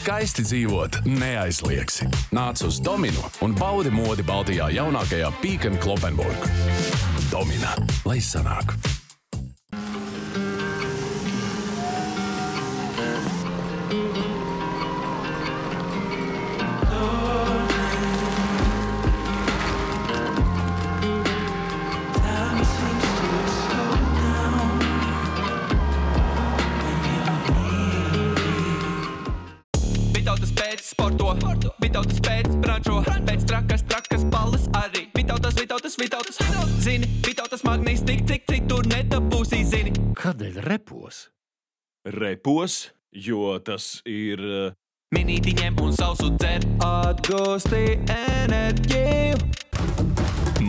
skaisti dzīvot neaizliegsi. Nāc uz Dominu un baudi modi Baltijā jaunākajā Peek & Cloppenburg. Domina, lai sanāk. Vitautas pēc sporto, Vitautas pēc brančo, pēc trakas balles arī. Vitautas, zini, Vitautas magnīs cik tur nedabūsī, zini. Kādēļ repos? Repos, jo tas ir... Minīti ņem un sausu dzer, atgūsti enerģiju.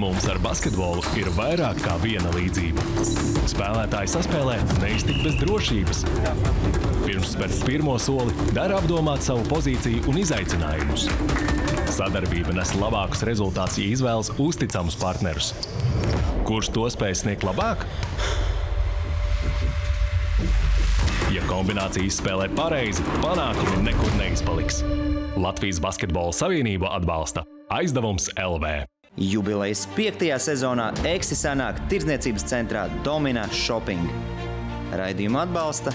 Mums ar basketbolu ir vairāk kā viena līdzība. Spēlētāji saspēlē neiztikt bez drošības. Pirms spērt pirmo soli, dara apdomāt savu pozīciju un izaicinājumus. Sadarbība nes labākus rezultātus, ja izvēlas uzticamus partnerus. Kurš to spēj sniegt labāk? Ja kombinācijas spēlē pareizi, panākumi nekur neizpaliks. Latvijas Basketbola Savienība atbalsta Aizdevums LV. Jubilejas 5. sezonā Eksi sanāk tirdzniecības centrā Domina Shopping. Raidījumu atbalsta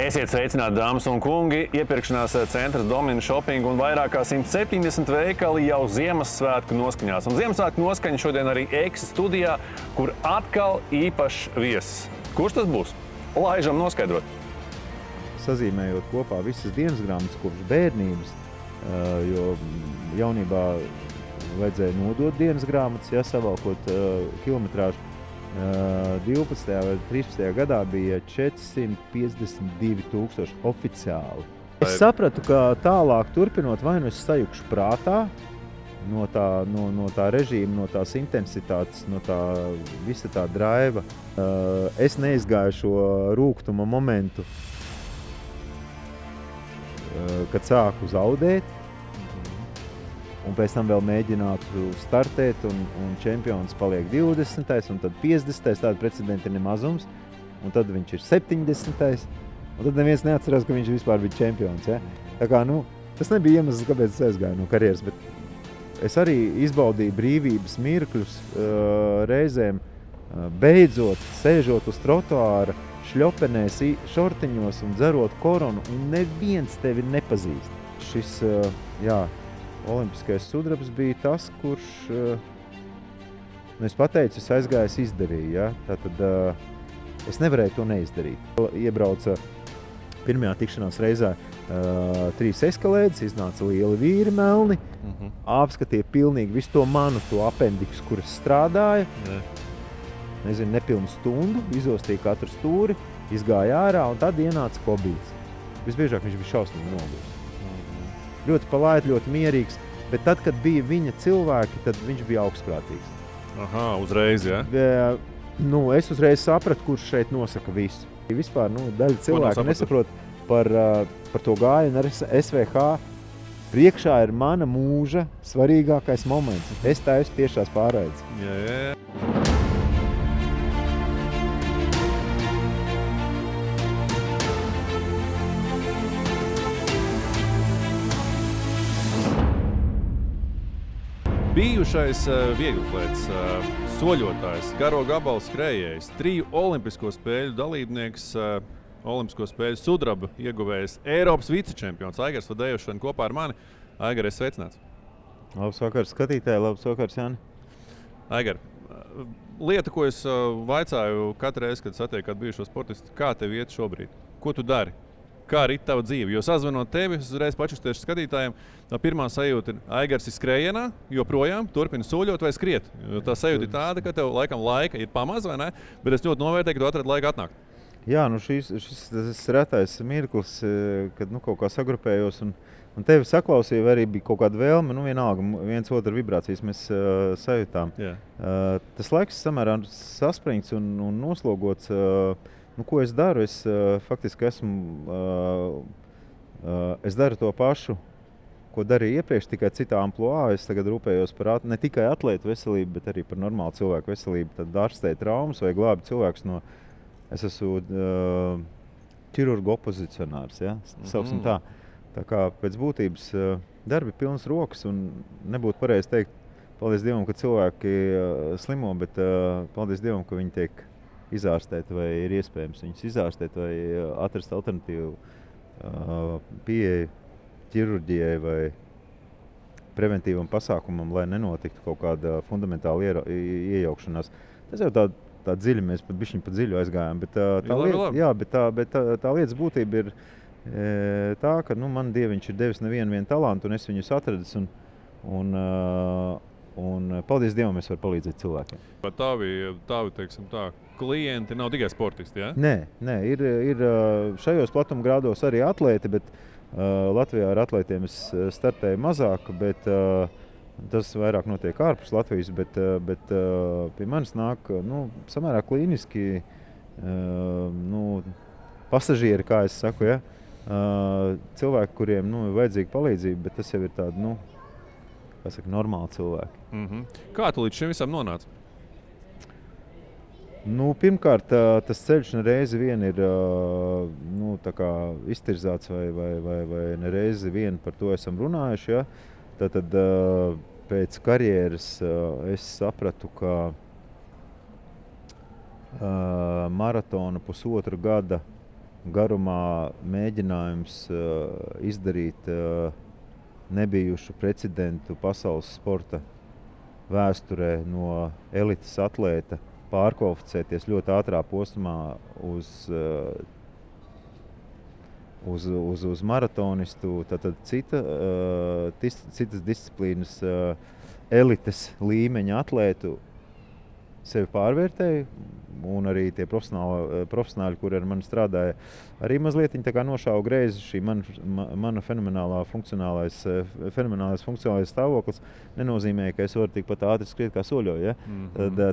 Esiet sveicināti, dāmas un kungi! Iepirkšanās centrs Domina Shopping un vairāk kā 170 veikali jau Ziemassvētku noskaņās. Un Ziemassvētku noskaņa šodien arī Eksi studijā, kur atkal īpašs viesis. Kurš tas būs? Laižam noskaidrot. Sazīmējot kopā visas dienas grāmatas kopš bērnības, jo jaunībā vajadzēja nodot dienas grāmatas, savalkot kilometrāžu. 12. vai 13. gadā bija 452 000 oficiāli. Es sapratu, ka tālāk turpinot, vai nu es sajukšu prātā no tā režīma, no tās intensitātes, no tā visa tā draiva. Es neizgāju šo rūgtuma momentu, kad sāku zaudēt. Un pēc tam vēl mēģinātu startēt, un čempions paliek 20. un tad 50. Tāda precedenta ir nemazums, un tad viņš ir 70. Un tad neviens neatcerās, ka viņš vispār bija čempions. Ja? Tā kā, tas nebija iemesls, kāpēc es aizgāju no karjeras, bet es arī izbaudīju brīvības mirkļus reizēm, beidzot, sēžot uz trotuāra, šļopenēs, šortiņos un dzerot koronu, un neviens tevi nepazīst. Šis, olimpiskais sudrabs bija tas, kurš, es pateicu, es aizgāju, es izdarīju. Ja? Tātad es nevarēju to neizdarīt. Iebrauca pirmajā tikšanās reizē 3 eskalēdes, iznāca lieli vīri melni, apskatīja pilnīgi visu to manu, to apendiksu, kuras strādāja. Nezinu, nepilnu stundu, izostīja katru stūri, izgāja ārā, un tad ienāca Kobīts. Visbiežāk viņš bija šausmīgi noguris. Ļoti palaids, ļoti mierīgs, bet tad, kad bija viņa cilvēki, tad viņš bija augstprātīgs. Aha, uzreiz, ja? Es uzreiz sapratu, kurš šeit nosaka visu. Vispār, daļa cilvēku nesaprot par to gājienu ar SVH. Priekšā ir mana mūža svarīgākais moments. Es taisu tiešās pārraides. Jā. Bijušais vieglatlēts, soļotājs, garo gabalu skrējējs, 3 olimpisko spēļu dalībnieks, olimpisko spēļu sudraba ieguvējs, Eiropas vicečempions Aigars Fadejevs šodien kopā ar mani. Aigar, esi sveicināts. Labs vakars skatītāji, labs vakars, Jāni. Aigar, lieta, ko es vaicāju katru reizi, kad satieku kādu bijušo sportistu, kā tev iet šobrīd? Ko tu dari? Kā rit tava dzīve? Jo sazvanot tevi, es uzreiz pačustiešu skatītājiem, pirmā sajūta ir Aigars ir skrējienā, joprojām turpina soļot vai skriet. Jo tā sajūta ir tāda, ka tev laikam laika ir pamaz, vai ne? Bet es ļoti novērtēju, ka tu atradi laiku atnākt. Jā, nu šis retais mirklis, kad kaut kā sagrupējos un tevi saklausīju, vai arī bija kaut kāda vēlme, vienalga, viens otru vibrācijas mēs sajūtām. Tas laiks samērā saspringts un noslogots. Ko es daru? Es faktiski es daru to pašu, ko darīju iepriekš, tikai citā amploā. Es tagad rūpējos par ne tikai atlētu veselību, bet arī par normālu cilvēku veselību. Tad ārstēju traumas vai glābi cilvēkus no... Es esmu ķirurgu opozicionārs, ja? Sauksim tā. Tā kā pēc būtības darbi pilnas rokas un nebūtu pareizi teikt, paldies Dievam, ka cilvēki slimo, bet paldies Dievam, ka viņi tiek izārstēti vai ir iespējams viņus izārstēt vai atrast alternatīvu pieeju ķirurģijai vai preventīvam pasākumam, lai nenotiktu kaut kāda fundamentāla iejaukšanās. Tas jau tā dziļi, mēs pat bišķiņ pa dziļu aizgājām, bet tā lietas būtība ir tā, ka man Dieviņš ir devis nevienu talantu un es viņus atradis un paldies Dievam, es varu palīdzēt cilvēkiem. Bet tavi, teiksim tā, klienti nav tikai sportisti, ja? Nē, ir šajos platumgrādos arī atlēti, bet Latvijā ar atlētiem es startēju mazāk, bet tas vairāk notiek ārpus Latvijas, bet pie manis nāk samērā klīniski pasažieri, kā es saku, ja? Cilvēki, kuriem ir vajadzīga palīdzība, bet tas jau ir tādi, normāli cilvēki. Kā tu līdz šim visam nonāci? Pirmkārt, tas ceļš nereizi vien ir tā kā iztirzāts vai nereizi vien par to esam runājuši. Ja? Tad pēc karjeras es sapratu, ka maratona 1,5 gada garumā mēģinājums izdarīt nebijušu precedentu pasaules sporta vēsturē no elites atlēta pārkvalificēties ļoti ātrā posmā uz maratonistu, tad citas disciplīnas elites līmeņa atlētu sevi pārvērtēju, un arī tie profesionāļi, kuri ar mani strādāja, arī mazliet tā kā nošāva greizi šī mana fenomenālais funkcionālais stāvoklis nenozīmē, ka es varu tikpat ātri skriet kā soļoju, ja?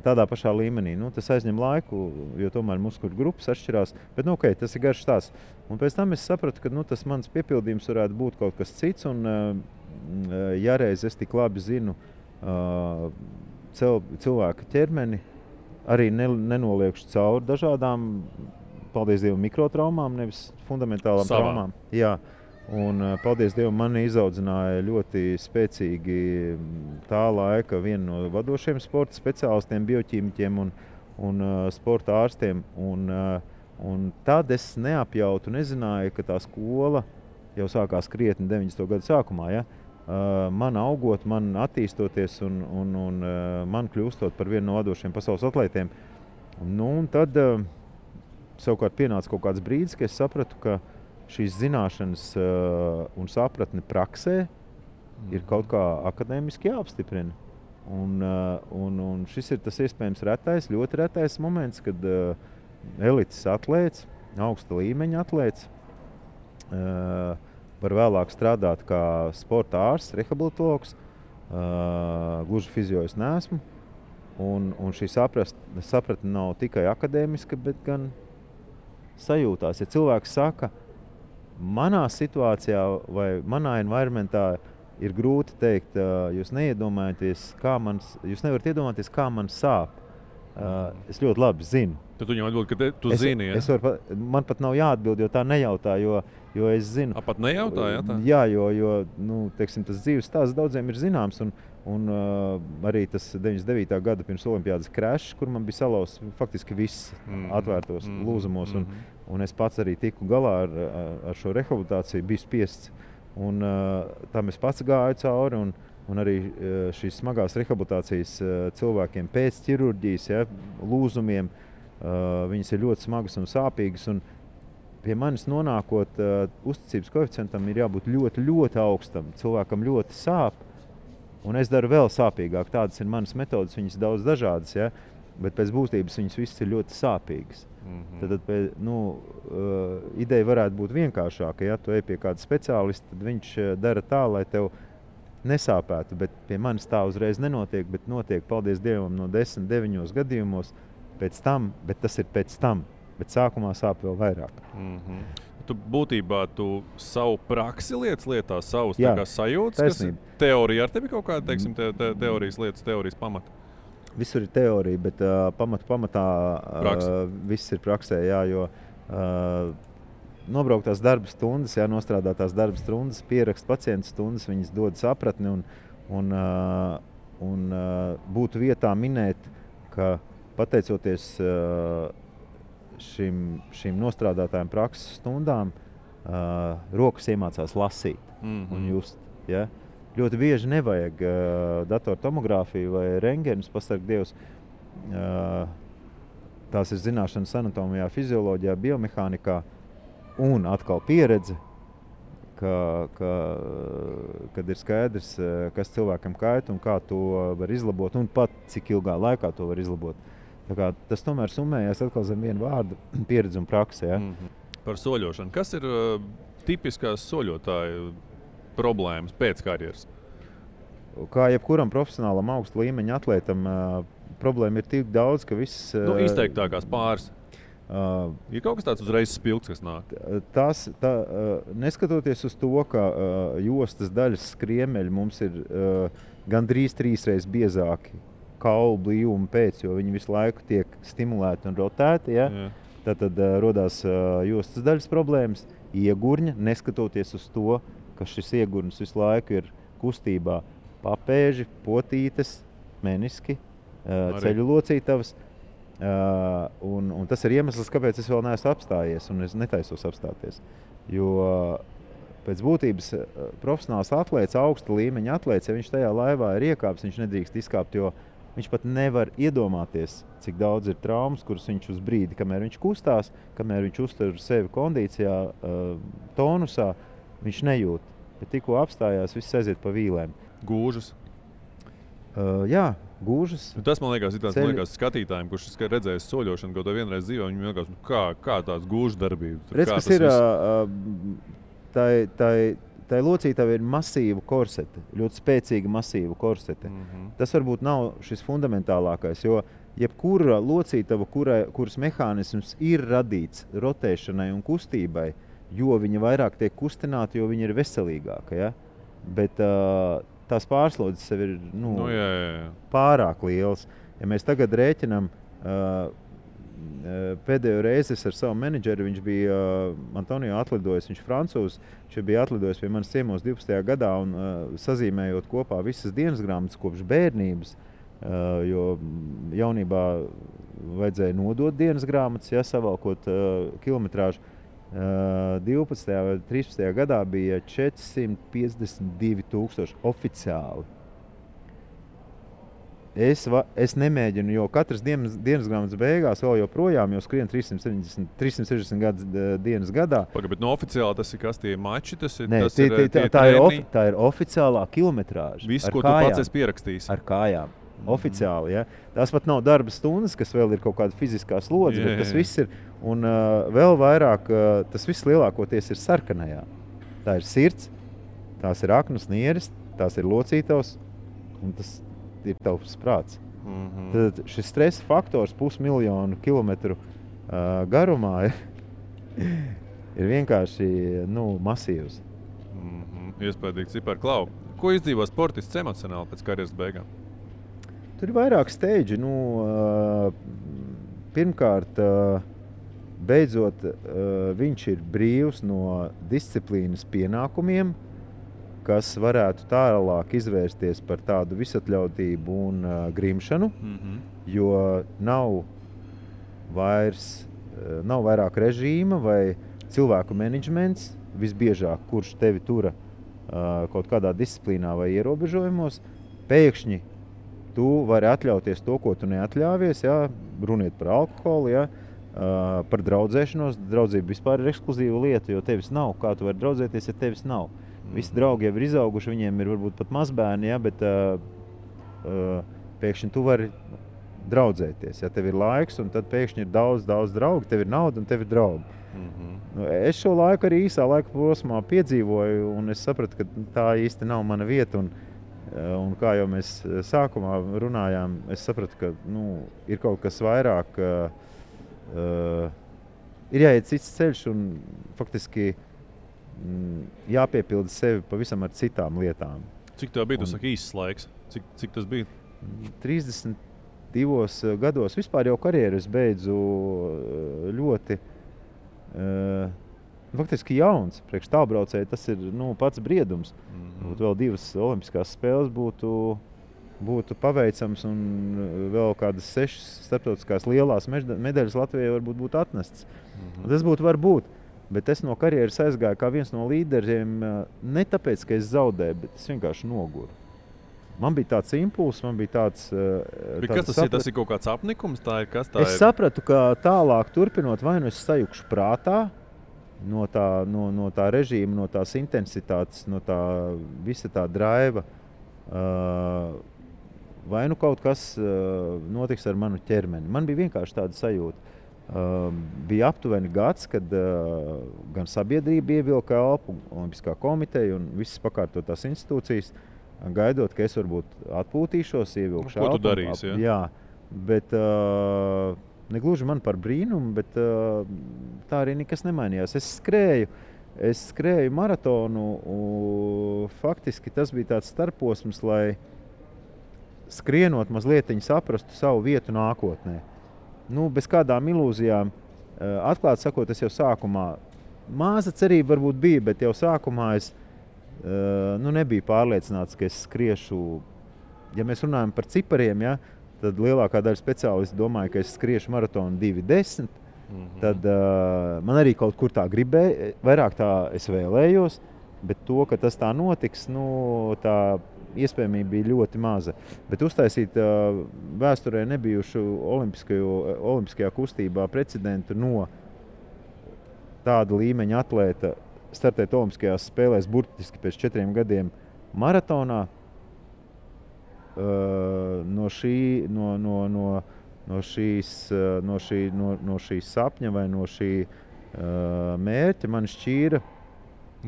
Tādā pašā līmenī. Tas aizņem laiku, jo tomēr muskuļu grupas atšķirās, bet okay, tas ir garš stāsts. Un pēc tam es sapratu, ka tas mans piepildījums varētu būt kaut kas cits, un ja reiz es tik labi zinu cilvēka ķermeni, arī nenoliekšu cauri dažādām, paldies Dievam, mikrotraumām, nevis fundamentālām traumām. Jā, un paldies Dievam, mani izaudzināja ļoti spēcīgi tā laika viena no vadošiem sporta speciālistiem, bioķīmiķiem un sporta ārstiem. Un tad es neapjautu, nezināju, ka tā skola jau sākās krietni 90. gadu sākumā, ja? Man augot, man attīstoties un man kļūstot par vienu no vadošiem pasaules atlētiem. Un tad savukārt pienāca kaut kāds brīdis, ka es sapratu, ka šīs zināšanas un sapratne praksē ir kaut kā akadēmiski jāapstiprina. Un šis ir tas iespējams ļoti retais moments, kad elites atlēts, augsta līmeņa atlēts, var vēlāk strādāt kā sporta ārsts, rehabilitologs, gluži fizio es neesmu. Un šī sapratne nav tikai akadēmiska, bet gan sajūtās. Ja cilvēks saka, manā situācijā vai manā environmentā ir grūti teikt, jūs nevarat iedomāties, kā man sāp. Es ļoti labi zinu. Tad tu viņam atbild, ka tu zini, ja? Man pat nav jāatbild, jo tā nejautā, jo es zinu. Pat nejautā, ja tā? Jā, jo teiksim, tas dzīves stāsts daudziem ir zināms, un arī tas 99. gada pirms olimpiādas crashs, kur man bija salauzts faktiski viss atvērtos lūzumos, un es pats arī tiku galā ar šo rehabilitāciju, biju spiests, un tam es pats gāju cauri, un arī šīs smagās rehabilitācijas cilvēkiem pēc ķirurģijas, ja, lūzumiem, viņas ir ļoti smagas un sāpīgas, un pie manis nonākot, uzticības koeficientam ir jābūt ļoti, ļoti augstam. Cilvēkam ļoti sāp, un es daru vēl sāpīgāk. Tādas ir manas metodas, viņas daudz dažādas. Ja? bet pēc būtības viņas visas ir ļoti sāpīgas. Tad ideja varētu būt vienkāršāka. Ja tu ej pie kāda speciālista, tad viņš dara tā, lai tev nesāpētu, bet pie manis tā uzreiz nenotiek, bet notiek, paldies Dievam, no 10-9 gadījumos pēc tam, bet tas ir pēc tam, bet sākumā sāp vēl vairāk. Tu būtībā savu praksi lietā, savus sajūtas, taisnība. Kas teorija ar tevi kaut kāda, teiksim, teorijas lietas, teorijas pamata? Visur ir teorija, bet pamatā viss ir praksē, jā, jo nobrauktās darba stundas, nostrādātās darba stundas, pierakst pacientu stundas, viņas dod sapratni un būtu vietā minēt, ka pateicoties šīm nostrādātājiem prakses stundām, rokas iemācās lasīt un just. Ja? Ļoti bieži nevajag datortomogrāfiju vai rengenus, pasarg Dievs. Tās ir zināšanas anatomijā, fizioloģijā, biomehānikā un atkal pieredze, kad ir skaidrs, kas cilvēkam kaita un kā to var izlabot un pat cik ilgā laikā to var izlabot. Tā kā tas tomēr summējās atkal zem vienu vārdu pieredze un prakse. Ja? Par soļošanu. Kas ir tipiskās soļotāju problēmas pēc karjeras? Kā jebkuram profesionālam augsta līmeņa atlētam, problēma ir tik daudz, ka viss... Izteiktākās pāris. Ir kaut kas tāds uzreiz spilgts, kas nāk? Neskatoties uz to, ka jostas daļas skriemeļi mums ir gandrīz 3 reizes biezāki kaulu blīvuma pēc, jo viņi visu laiku tiek stimulēti un rotēti. Ja? Tad rodās jostas daļas problēmas, iegurņa, neskatoties uz to, ka šis iegurnis visu laiku ir kustībā papēži, potītes, meniski, ceļu locītavas. Un tas ir iemesls, kāpēc es vēl neesmu apstājies un es netaisos apstāties. Jo pēc būtības profesionāls atlēts, augsta līmeņa atlēts, ja viņš tajā laivā ir iekāps, viņš nedrīkst izkāpt, jo viņš pat nevar iedomāties, cik daudz ir traumas, kuras viņš uz brīdi, kamēr viņš kustās, kamēr viņš uztur sevi kondīcijā, tonusā, viņš nejūt. Bet tikko apstājās, viss aiziet pa vīlēm. Gūžas? Jā, gūžas. Tas man liekas skatītājiem, kurš redzējis soļošanu kaut vienreiz dzīvē, viņam liekas, kā tāds gūžu darbība. Redz, kas ir, tai locītavai ir masīva korsete, ļoti spēcīga masīva korsete. Tas varbūt nav šis fundamentālākais, jo jebkura locītava, kuras mehānisms ir radīts rotēšanai un kustībai, jo viņa vairāk tiek kustināta, jo viņa ir veselīgāka. Ja? Bet tās pārslodzes sev ir pārāk lielas. Ja mēs tagad rēķinām, pēdējo reizi ar savu menedžeri, viņš bija Antonio atlidojis, viņš francūzs, viņš bija atlidojis pie manis ciemos 12. gadā un sazīmējot kopā visas dienas grāmatas kopš bērnības, jo jaunībā vajadzēja nodot dienas grāmatas, savalkot kilometrāžu. 12. vai 13. gadā bija 452,000 oficiāli. Es nemēģinu, jo katras dienas grāmatas beigās vēl joprojām jau skrien 360 dienas gadā. Bet no oficiāli tas ir kas tie mači? Tā ir oficiālā kilometrāža. Viss, ko tu pats esi pierakstījis? Ar kājām. Oficiāli, ja. Tās pat nav darba stundas, kas vēl ir kaut kāda fiziskā slodze, bet tas viss ir, un vēl vairāk, tas viss lielākoties ir sarkanajā. Tā ir sirds, tās ir aknas nieres, tās ir locītavas, un tas ir tavs prāts. Tad šis stresa faktors 500,000 kilometru garumā ir vienkārši masīvs. Iespējīgi cipari. Klau, ko izdzīvo sportists emocionāli pēc karjeras beigām? Tur ir vairāk steidži. Pirmkārt, beidzot, viņš ir brīvs no disciplīnas pienākumiem, kas varētu tālāk izvērsties par tādu visatļautību un grimšanu, jo nav vairāk režīma vai cilvēku menedžments, visbiežāk, kurš tevi tura kaut kādā disciplīnā vai ierobežojumos, pēkšņi tu vari atļauties to, ko tu neatļāvies, runiet par alkoholu, par draudzēšanos. Draudzība vispār ir ekskluzīva lieta, jo tevis nav. Kā tu vari draudzēties, ja tevis nav? Visi draugi jau ir izauguši, viņiem ir varbūt pat mazbērni, bet pēkšņi tu vari draudzēties. Ja tev ir laiks, un tad pēkšņi ir daudz draugu, tev ir nauda un tev ir draugi. Nu, es šo laiku arī īsā laika posmā piedzīvoju, un es sapratu, ka tā īsti nav mana vieta. Un kā jau mēs sākumā runājām, es sapratu, ka ir kaut kas vairāk, ir jāiet cits ceļš un faktiski jāpiepilda sevi pavisam ar citām lietām. Cik tev bija, tu saki, īsts laiks? Cik tas bija? 32 gados. Vispār jau karjeru es beidzu ļoti faktiski jauns. Priekš tālbraucēji tas ir pats briedums. Būtu vēl 2 olimpiskās spēles būtu paveicams un vēl kādas 6 starptautiskās lielās medaļas Latvijai varbūt būtu atnestas. Tas būtu varbūt. Bet es no karjeras aizgāju kā viens no līderiem ne tāpēc, ka es zaudēju, bet es vienkārši noguru. Man bija tāds impulss, man bija tāds... Kas tas ir? Tas ir kaut kāds apnikums? Es sapratu, ka tālāk turpinot, vai nu es sajukšu prātā no tā režīma, no tās intensitātes, no tā visa tā draiva, vai nu kaut kas notiks ar manu ķermeni. Man bija vienkārši tāda sajūta. Bija aptuveni gads, kad gan sabiedrība ievilka elpu, Olimpiskā komiteja un visas pakārtotās institūcijas, gaidot, ka es varbūt atpūtīšos, ievilkšu elpu. Ko tu darīsi? Jā, bet negluži man par brīnumu, bet tā arī nekas nemainījās. Es skrēju maratonu, faktiski tas bija tāds starposms, lai skrienot mazlietiņi saprastu savu vietu nākotnē. Bez kādām ilūzijām, atklāt sakot, es jau sākumā, māza cerība varbūt bija, bet jau sākumā es nebiju pārliecināts, ka es skriešu, ja mēs runājam par cipariem, ja, tad lielākā daļa speciālisti domāja, ka es skriešu maratonu 2:10, tad man arī kaut kur tā gribēja, vairāk tā es vēlējos, bet to, ka tas tā notiks, tā iespējamība bija ļoti maza. Bet uztaisīt vēsturē nebijušu olimpiskajā kustībā precedentu no tāda līmeņa atlēta startēt olimpiskajās spēlēs burtiski pēc 4 gadiem maratonā, no šī sapņa vai no šī mērķa man šķīra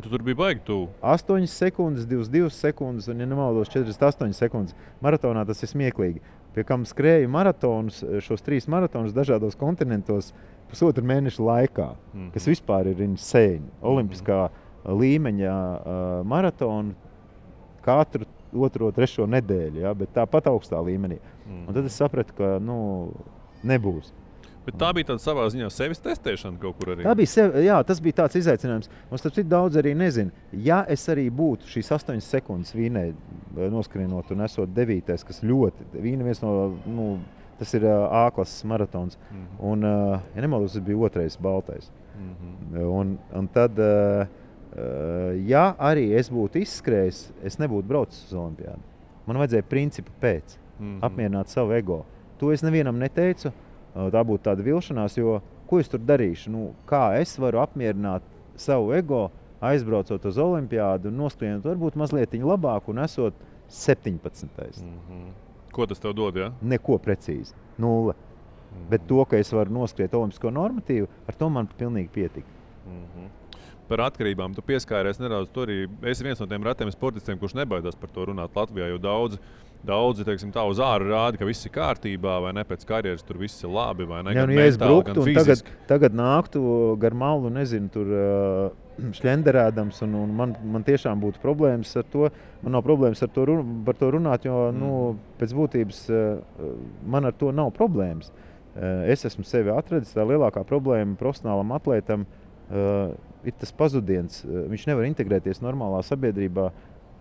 Tu tur bija baigi tuvu. 8 sekundes, 22 sekundes un, ja nemaldos, 48 sekundes. Maratonā tas ir smieklīgi. Pie kam skrēju maratonus, šos 3 maratonus dažādos kontinentos 1,5 mēneša laikā, kas vispār ir insane. Olimpiskā līmeņa maratonu katru 2. 3. nedēļu, ja, bet tāpat augstā līmenī. Un tad es sapratu, ka nebūs. Bet tā bija tāda savā ziņā sevis testēšana kaut kur arī. Tas bija tāds izaicinājums. Un starp citu daudz arī nezinu. Ja es arī būtu šīs 8 sekundes Vīnē noskrienot un esot 9. kas ļoti, Vīna viens no, tas ir A-klases maratons. Un, ja nemaldos, tas bija 2. baltais. Un tad, ja arī es būtu izskrējis, es nebūtu braucis uz olimpiādu. Man vajadzēja principu pēc, apmierināt savu ego. To es nevienam neteicu. Tā būtu tāda vilšanās, jo ko es tur darīšu? Kā es varu apmierināt savu ego, aizbraucot uz olimpiādu un noskrienot varbūt mazliet labāk un esot 17. Ko tas tev dod, ja? Neko precīzi. 0. Bet to, ka es varu noskriet olimpisko normatīvu, ar to man pilnīgi pietika. Par atkarībām tu pieskāries nedaudz. Tu arī esi viens no tiem retiem sportistiem, kurš nebaidās par to runāt Latvijā, jo daudzi, teiksim, tā uz āru rāda, ka viss ir kārtībā, vai ne pēc karjeras tur viss ir labi, vai ne? Ja es bruktu un tagad nāktu gar malu, nezinu, tur šļenderēdams, un man tiešām būtu problēmas ar to. Man nav problēmas par to runāt, jo pēc būtības man ar to nav problēmas. Es esmu sevi atradis, tā lielākā problēma profesionālam atlētam ir tas pazudiens. Viņš nevar integrēties normālā sabiedrībā,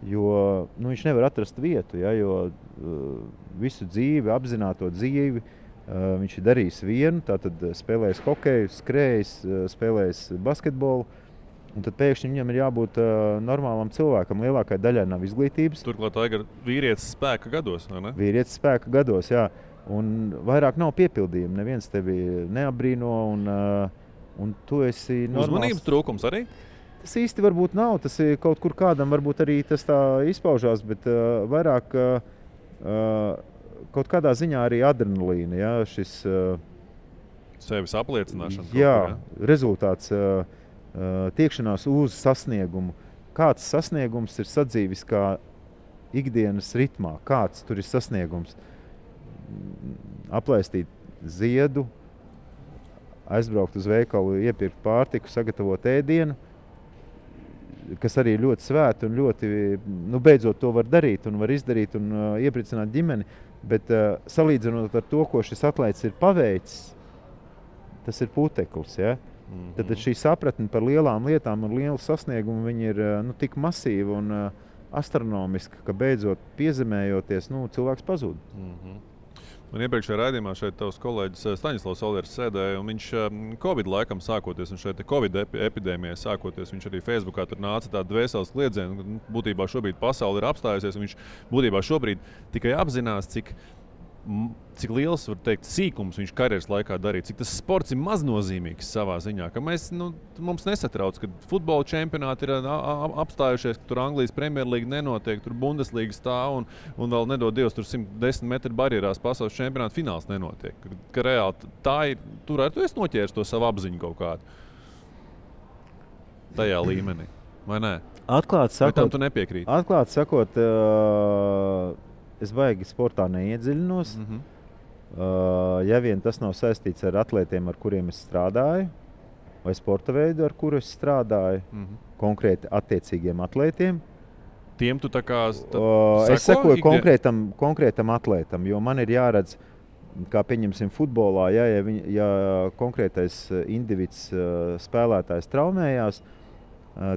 jo viņš nevar atrast vietu, ja, jo visu dzīvi, apzināto dzīvi, viņš ir darījis vienu, tātad spēlējis hokeju, skrējis, spēlējis basketbolu, un tad pēkšņi viņam ir jābūt normālam cilvēkam. Lielākai daļai nav izglītības. Turklāt Aigar vīrietis spēka gados, vai ne? Vīrietis spēka gados, jā. Un vairāk nav piepildījumi. Neviens tevi neapbrīno, un tu esi normāls. Uzmanības trūkums arī? Tas īsti varbūt nav, tas ir kaut kur kādam, varbūt arī tas tā izpaužās, bet vairāk kaut kādā ziņā arī adrenalīna, ja, šis sevis apliecināšana. Jā, rezultāts, tiekšanās uz sasniegumu. Kāds sasniegums ir sadzīvis kā ikdienas ritmā? Kāds tur ir sasniegums? Aplaistīt ziedu, aizbraukt uz veikalu, iepirkt pārtiku, sagatavot ēdienu, kas arī ļoti svēta un ļoti, beidzot to var darīt un var izdarīt un iepriecināt ģimeni, bet salīdzinot ar to, ko šis atlēts ir paveicis, tas ir puteklis, ja? Tad šī sapratne par lielām lietām un lielu sasniegumu viņi ir tik masīva un astronomiska, ka beidzot piezemējoties, cilvēks pazūd. Man iepriekšējā raidījumā šeit tavs kolēģis Staņislavs Olers sēdēja, un viņš Covid laikam sākoties, un šeit Covid epidēmijai sākoties, viņš arī Facebookā tur nāca tāda dvēseles kliedziena, būtībā šobrīd pasaule ir apstājusies, un viņš būtībā šobrīd tikai apzinās, cik liels, var teikt, sīkums viņš karjeras laikā darīja, cik tas sports ir maznozīmīgs savā ziņā, ka mums nesatrauc, ka futbola čempionāti ir apstājušies, ka tur Anglijas Premjerlīga nenotiek, tur Bundeslīga stāv un vēl nedod Dievs, tur 110 metru barjerās pasaules čempionāta fināls nenotiek. Ka reāli tā ir, tur arī tu esi noķēris to savu apziņu kaut kādu tajā līmenī, vai ne? Atklāti sakot, vai tam tu nepiekrīti? Atklāti sakot, es baigi sportā neiedziļinos. Ja vien tas nav saistīts ar atlētiem, ar kuriem es strādāju, vai sporta veidu, ar kuru es strādāju, konkrēti attiecīgiem atlētiem. Tiem tu tā kā es sekoju konkrētam atlētam, jo man ir jāredz, kā pieņemsim futbolā, ja konkrētais individs spēlētājs traumējās,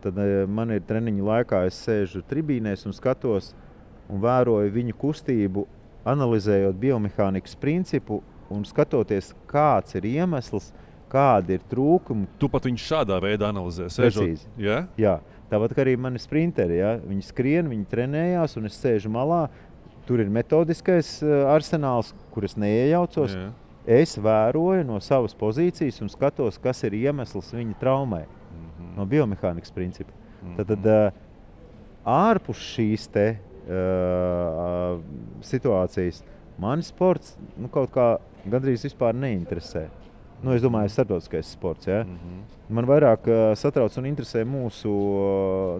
tad man ir treniņu laikā, es sēžu tribīnēs un skatos un vēroju viņu kustību, analizējot biomehānikas principu un skatoties, kāds ir iemesls, kādi ir trūkumi. Tu pat viņu šādā veidā analizē? Precīzi. Ja? Jā. Tāpat kā arī mani sprinteri. Ja? Viņi skrien, viņi trenējās un es sēžu malā. Tur ir metodiskais arsenāls, kur es neiejaucos. Jā. Es vēroju no savas pozīcijas un skatos, kas ir iemesls viņa traumai. No biomehānikas principa. Tad ārpus šīs situācijas mani sports kaut kā gandrīz vispār neinteresē. Es domāju, starptautiskais sports. Ja? Man vairāk satrauc un interesē mūsu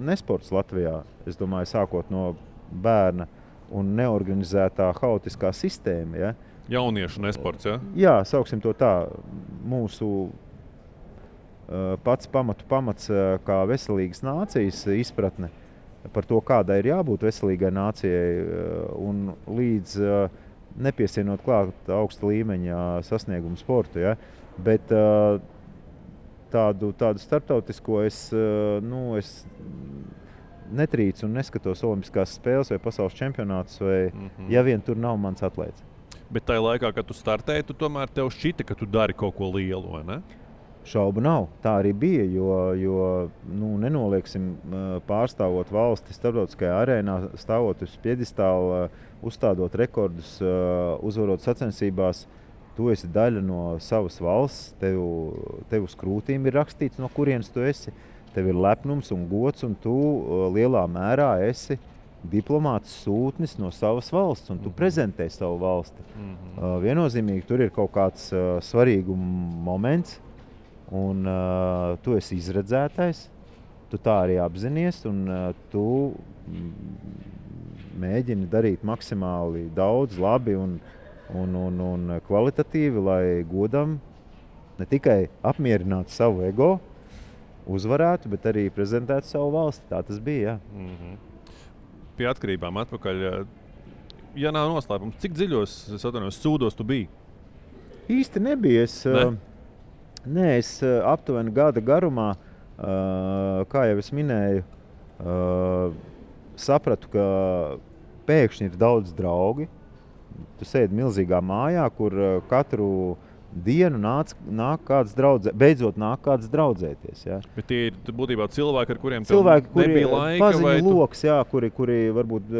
nesports Latvijā. Es domāju, sākot no bērna un neorganizētā haotiskā sistēma. Ja? Jauniešu nesports, ja? Jā, sauksim to tā. Mūsu pats pamats kā veselīgas nācijas izpratne par to, kādai ir jābūt veselīgai nācijai un līdz nepiesienot klāt augsta līmeņa sasniegumu sportu. Ja? Bet tādu starptautisko es netrīcu un neskatos olimpiskās spēles vai pasaules čempionātus, vai ja vien tur nav mans atlēts. Bet tajā laikā, kad tu startēji, tu tomēr tev šķita, ka tu dari kaut ko lielu, vai ne? Šaubu nav. Tā arī bija, jo nenolieksim, pārstāvot valsti starptautiskajā arēnā, stāvot uz piedestāla, uzstādot rekordus, uzvarot sacensībās. Tu esi daļa no savas valsts, tev uz krūtīm ir rakstīts, no kurienes tu esi. Tev ir lepnums un gods, un tu lielā mērā esi diplomāts sūtnis no savas valsts, un tu prezentē savu valsti. Viennozīmīgi tur ir kaut kāds svarīguma moments, un tu esi izredzētais, tu tā arī apzinies, un tu mēģini darīt maksimāli daudz, labi un kvalitatīvi, lai godam ne tikai apmierinātu savu ego, uzvarētu, bet arī prezentētu savu valsti. Tā tas bija, jā. Pie atkarībām atpakaļ. Ja nav noslēpums, cik dziļos, sūdos tu biji? Īsti nebija. Es aptuveni gada garumā, kā jau es minēju, sapratu, ka pēkšņi ir daudz draugi. Tu sēdi milzīgā mājā, kur katru dienu nāk kāds beidzot nāk kāds draudzēties. Ja. Bet tie ir būtībā cilvēki, ar kuriem cilvēki, nebija laika? Paziņu loks, jā, kuri varbūt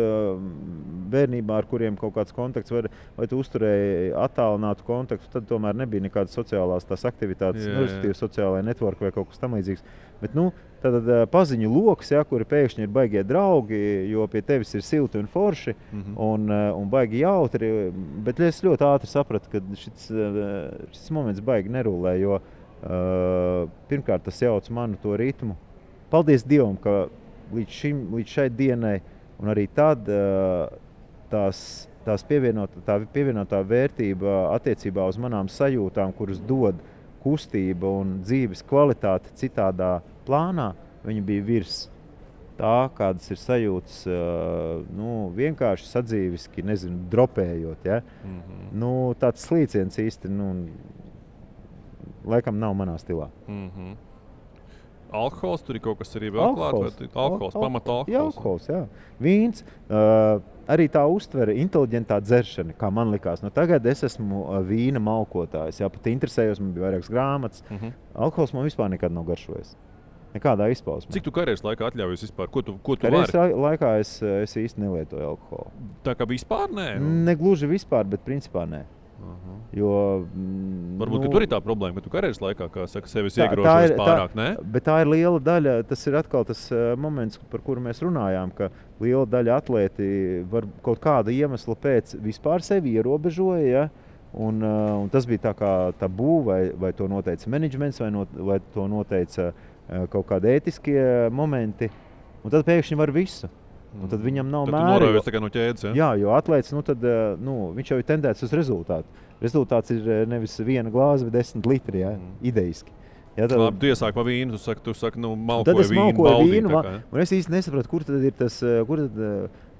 bērnībā, ar kuriem kaut kāds kontakts, vai tu uzturēji attālinātu kontaktu, tad tomēr nebija nekādas sociālās tās aktivitātes, respektīvi sociālai network vai kaut kas tam līdzīgs. Bet, tad paziņu loks, kuri pēkšņi ir baigie draugi, jo pie tevis ir silti un forši un baigi jautri, bet es ļoti ātri sapratu, ka šis moments baigi nerulē, jo pirmkārt tas jauc manu to ritmu. Paldies Dievam, ka līdz šai dienai un arī tad tā pievienotā vērtība attiecībā uz manām sajūtām, kuras dod kustība un dzīves kvalitāte citādā plānā, viņi bija virs tā, kādas ir sajūtas, vienkārši sadzīviski, dropējot. Ja? Tāds slīciens īsti, laikam nav manā stilā. Alkohols, tur ir kaut kas arī vēl klāt? Pamata alkohols? Jā, alkohols, jā. Vīns, arī tā uztvere, inteliģentā dzeršana, kā man likās. Tagad es esmu vīna malkotājs, pat interesējos, man bija vairākas grāmatas. Alkohols man vispār nekad nav garšojis. Nekādā izpausmē. Cik tu karjeras laikā atļaujies vispār? Ko tu karjeras laikā es īsti nelietoju alkoholu. Tā kā vispār nē? Negluži vispār, bet principā nē. Jo, varbūt, ka tur ir tā problēma, ka tu karjeras laikā, kā saka, sevis iegrožojas pārāk, ne? Bet tā ir liela daļa, tas ir atkal tas moments, par kuru mēs runājām, ka liela daļa atlēti var kaut kāda iemesla pēc vispār sevi ierobežoja, ja? Un tas bija tā kā tabū, vai to noteica menedžments, vai to noteica kaut kādi ētiskie momenti, un tad pēkšņi var visu. Un tad viņam nav mēra. Tad tu norāvies tā kā no ķēdes, ja? Jā, jo atlēts, viņš jau ir tendēts uz rezultātu. Rezultāts ir nevis 1 glāze, bet 10 litri, idejiski. Ja, tad... Labi, tu iesāki pa vīnu, tu saki, malkoju vīnu, baudīt. Un es īsti nesapratu, kur tad ir tas,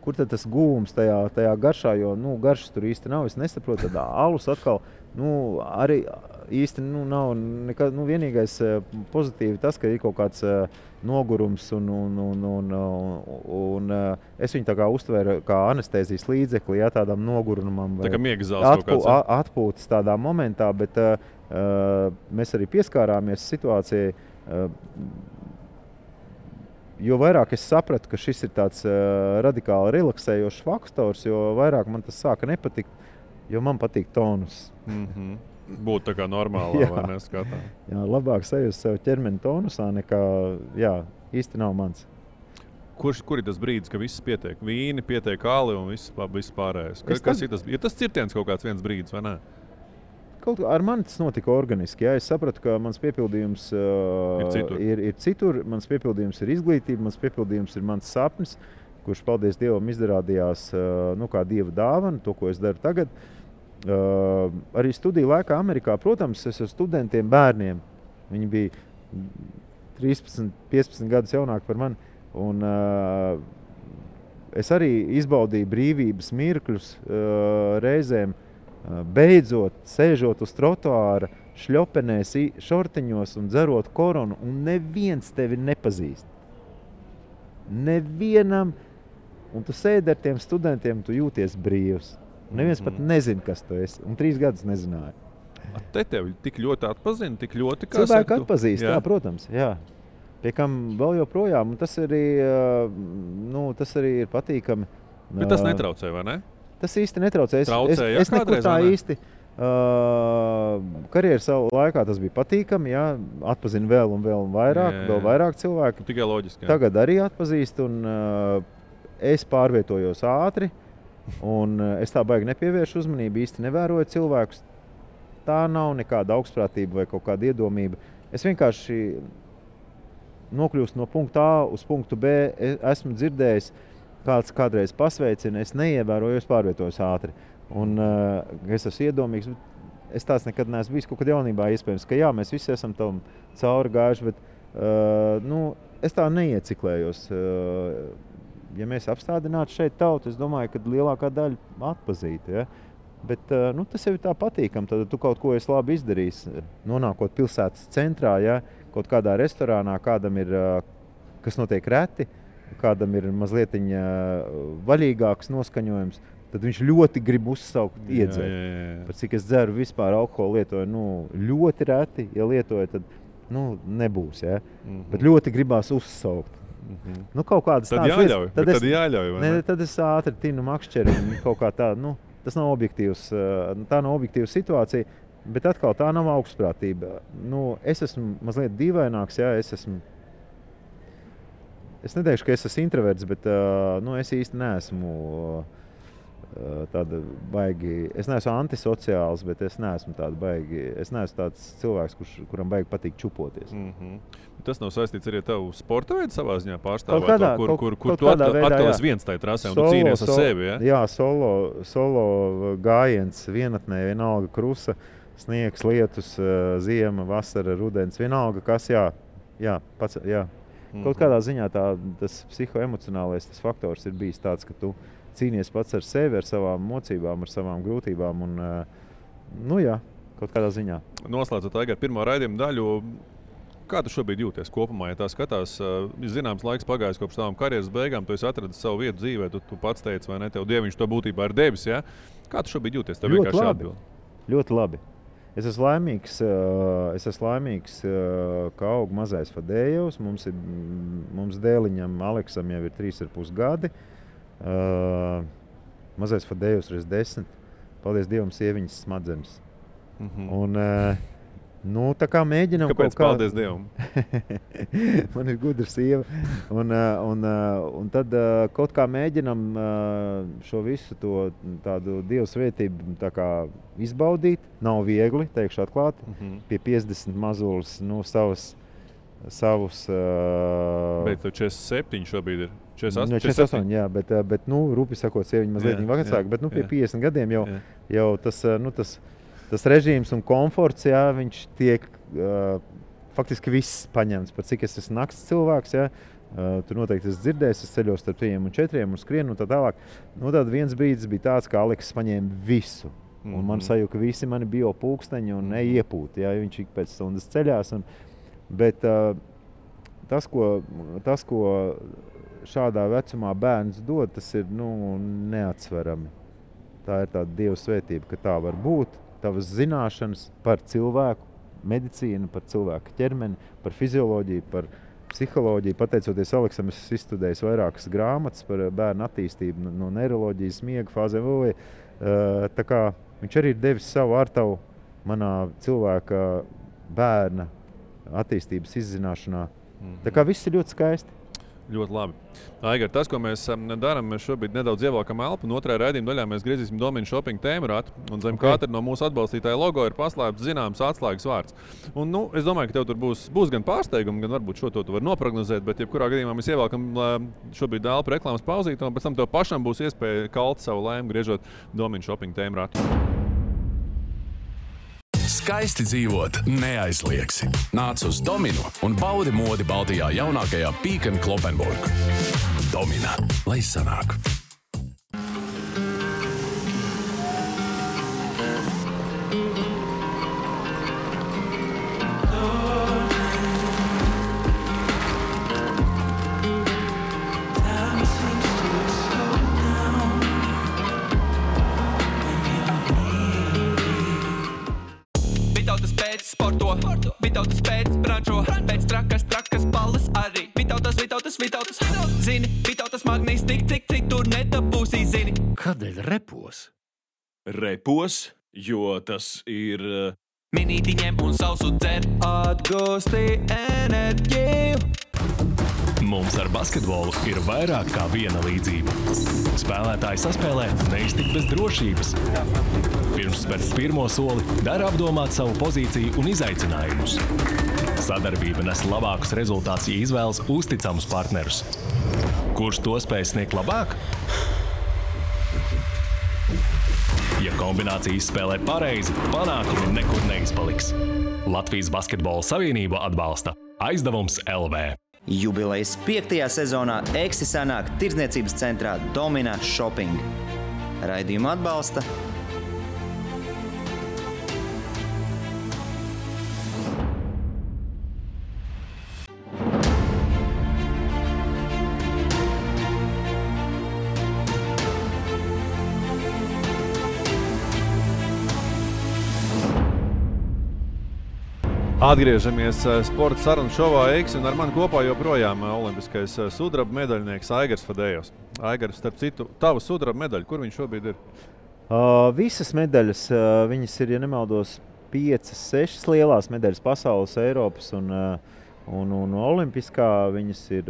kur tad tas gūms tajā garšā, jo, garšas tur īsti nav. Es nesaprotu, tad alus atkal, arī īsti nav nekā, vienīgais pozitīvi tas, ka ir kaut kāds nogurums un es viņu tā kā uztvēru kā anestēzijas līdzekli, tādam nogurumam. Tā kā miega zāles kaut kāds. Atpūtas tādā momentā, bet mēs arī pieskārāmies situācijai, jo vairāk es sapratu, ka šis ir tāds radikāli relaksējošs faktors, jo vairāk man tas sāka nepatikt, jo man patīk tonus. Būtu tā kā normālā, vai neskatā? Jā, labāk sajust sev ķermeni tonusā nekā, īsti nav mans. Kur ir tas brīdis, ka viss pietiek? Vīni, pietiek kāli un viss pārējais. Kas ir tas? Ir tas cirtiens kaut kāds viens brīdis, vai ne? Ar mani tas notika organiski. Jā. Es sapratu, ka mans piepildījums ir citur. Mans piepildījums ir izglītība, mans piepildījums ir mans sapnis, kurš, paldies Dievam, izrādījās kā Dieva dāvana, to, ko es daru tagad. Arī studiju laikā Amerikā, protams, es ar studentiem bērniem. Viņi bija 13, 15 gadus jaunāki par mani. Un es arī izbaudīju brīvības mirkļus reizēm, beidzot, sēžot uz trotuāra, šļopenēs, šortiņos un dzerot koronu, un neviens tevi nepazīst. Nevienam, un tu sēdi ar tiem studentiem, tu jūties brīvs. Neviens pat nezina, kas tu esi, un 3 gadus nezināja. Te tevi tik ļoti atpazina, tik ļoti, kā cilvēki atpazīst, jā, protams, jā. Pie kam vēl joprojām, un tas arī ir patīkami. Bet tas netraucē, vai ne? Tas īsti netraucē. Es nekur tā īsti. Karjeras laikā tas bija patīkami, jā, atpazina vēl un vairāk, vēl vairāk cilvēku. Tikai loģiski, jā. Tagad arī atpazīst, un es pārvietojos ātri. Un es tā baigi nepievēršu uzmanību, īsti nevēroju cilvēkus. Tā nav nekāda augstprātība vai kaut kāda iedomība. Es vienkārši nokļūstu no punkta A uz punktu B. Esmu dzirdējis, kāds kādreiz pasveicina, es neievēroju, es pārvietojos ātri. Un es esmu iedomīgs, bet es tāds nekad neesmu bijis kaut kad jaunībā. Iespējams, ka jā, mēs visi esam tam cauri gājuši, bet es tā neieciklējos. Ja mēs apstādinātu šeit tautu, es domāju, ka lielākā daļa atpazītu. Ja? Bet tas jau ir tā patīkami. Tad tu kaut ko esi labi izdarījis. Nonākot pilsētas centrā, ja? Kaut kādā restorānā, kādam ir, kas notiek reti, kādam ir mazliet vaļīgāks noskaņojums, tad viņš ļoti grib uzsaukt, iedzert. Pat cik es dzeru vispār alkoholu lietoju, ļoti reti, ja lietoju, tad nebūs. Ja? Bet ļoti gribās uzsaukt. Nu, kaut kādas Tad tādas jāļauj. lietas. Tad jāļauj. vai Ne, ne? tad es ātri tinu makšķeri un kaut kā tā, nu, tas nav objektīvs, tā nav objektīva situācija, bet atkal tā nav augstprātība. Nu, es esmu mazliet dīvaināks, jā, es neteikšu, ka es esmu introverts, bet nu, es īsti neesmu tāda baigi, es neesmu antisociāls, bet es neesmu tāds cilvēks, kuram baigi patīk čupoties. Tas nav saistīts arī ar tavu sporta veidu savā ziņā Kaut pārstāvēt, kādā- kur kaut tu kādā veidā, atkal esi jā. viens tajā trasē un tu cīnies ar sevi. Ja? Jā, solo gājiens vienatnē, vienalga krusa, sniegs, lietus, ziema, vasara, rudens, vienalga kas, jā. Kaut kādā ziņā tas psihoemocionālais tas faktors ir bijis tāds, ka tu cīnies pats ar sevi, ar savām mocībām, ar savām grūtībām un, nu jā, kaut kādā ziņā. Noslēdzot tagad pirmo raidījumu daļu, kā tu šobrīd jūties kopumā? Ja tā skatās, zināms laiks pagājis kopš tavām karjeras beigām, tu esi atradis savu vietu dzīvē, tu pats teici, vai ne, tev Dieviņš to būtībā ir devis, ja? Kā tu šobrīd jūties? Tev vienkārši jāatbild. Ļoti labi. Es esmu laimīgs, ka aug mazais Fadējevs. Mums dēliņam Aleksam jau ir 3,5 gadi. Mazais Fadējevs ir 10. Paldies Dievam, sieviņas smadzenes. Un, nu, tā kā mēģinām Kāpēc? Paldies Dievam. Man ir gudra sieva. Un tad kaut kā mēģinām šo visu tādu Dieva svētību tā kā izbaudīt. Nav viegli, teikšu atklāti. Pie 50 mazulis, nu, savus... Bet tev 47 šobrīd ir. 48, jā, bet nu, rūpi sakot, sieviņa mazliet vecāka, bet nu, pie 50 gadiem jau tas režīms un komforts, jā, viņš tiek faktiski viss paņemts. Par cik es esmu nakts cilvēks, jā, tu noteikti esi dzirdējis, es ceļos starp 3 un 4 un skrienu un tā tālāk. Nu, tad viens brīdis bija tāds, ka Aleks paņēma visu. Un man sajūta, ka visi mani bio pulksteņi un neiepūti, jā, viņš ik pēc stundas ceļās. Bet tas, ko šādā vecumā bērns dod, tas ir neatsverami. Tā ir tāda Dieva svētība, ka tā var būt. Tavas zināšanas par cilvēku medicīnu, par cilvēku ķermeni, par fizioloģiju, par psiholoģiju. Pateicoties Aleksam, es izstudēju vairākas grāmatas par bērnu attīstību no neiroloģijas, miega fāzēm. Tā kā viņš arī ir devis savu ārtavu manā cilvēka bērna attīstības izzināšanā. Tā kā viss ir ļoti skaisti. Ļoti labi. Aigar, tas, ko mēs darām, mēs šobrīd nedaudz ievelkam elpu. Un otrajā raidījuma daļā mēs griezīsim Domina Shopping tēmu ratu. Un zem katra no mūsu atbalstītāja logo ir paslēpts zināms atslēgas vārds. Un, nu, es domāju, ka tev tur būs gan pārsteigumi, gan varbūt šo to tu vari noprognozēt. Bet jebkurā gadījumā mēs ievelkam šobrīd elpu reklāmas pauzīti. Un pēc tam tev pašam būs iespēja kalt savu laimi, griežot Domina Shopping tēmu ratu. Skaisti dzīvot neaizliegsi. Nāc uz Dominu un baudi modi Baltijā jaunākajā Peek & Cloppenburg. Domina, lai sanāk! Vitautas pēc brančo, pēc trakas balles arī. Vitautas, zini, Vitautas magnīs tik tur nedabūsī, zini. Kādēļ repos? Repos, jo tas ir... Minīti ņem un sausu dzer, atgūsti enerģiju. Mums ar basketbolu ir vairāk kā viena līdzība. Spēlētāji saspēlē neiztikt bez drošības. Pirms spērt pirmo soli, dara apdomāt savu pozīciju un izaicinājumus. Sadarbība nes labākus rezultātus, ja izvēlas uzticamus partnerus. Kurš to spēj sniegt labāk? Ja kombinācijas spēlē pareizi, panākumi nekur neizpaliks. Latvijas Basketbola Savienība atbalsta Aizdevums LV. Jubilejas 5. sezonā Eksi sanāk tirdzniecības centrā Domina Shopping. Raidījumu atbalsta Atgriežamies sporta sarunu šovā Eiksi, un ar mani kopā joprojām olimpiskais sudraba medaļnieks Aigars Fadējos. Aigars, starp citu, tava sudraba medaļa, kur viņš šobrīd ir? Visas medaļas, viņas ir, ja nemaldos, 5, 6 lielās medaļas pasaules, Eiropas un olimpiskā. Viņas ir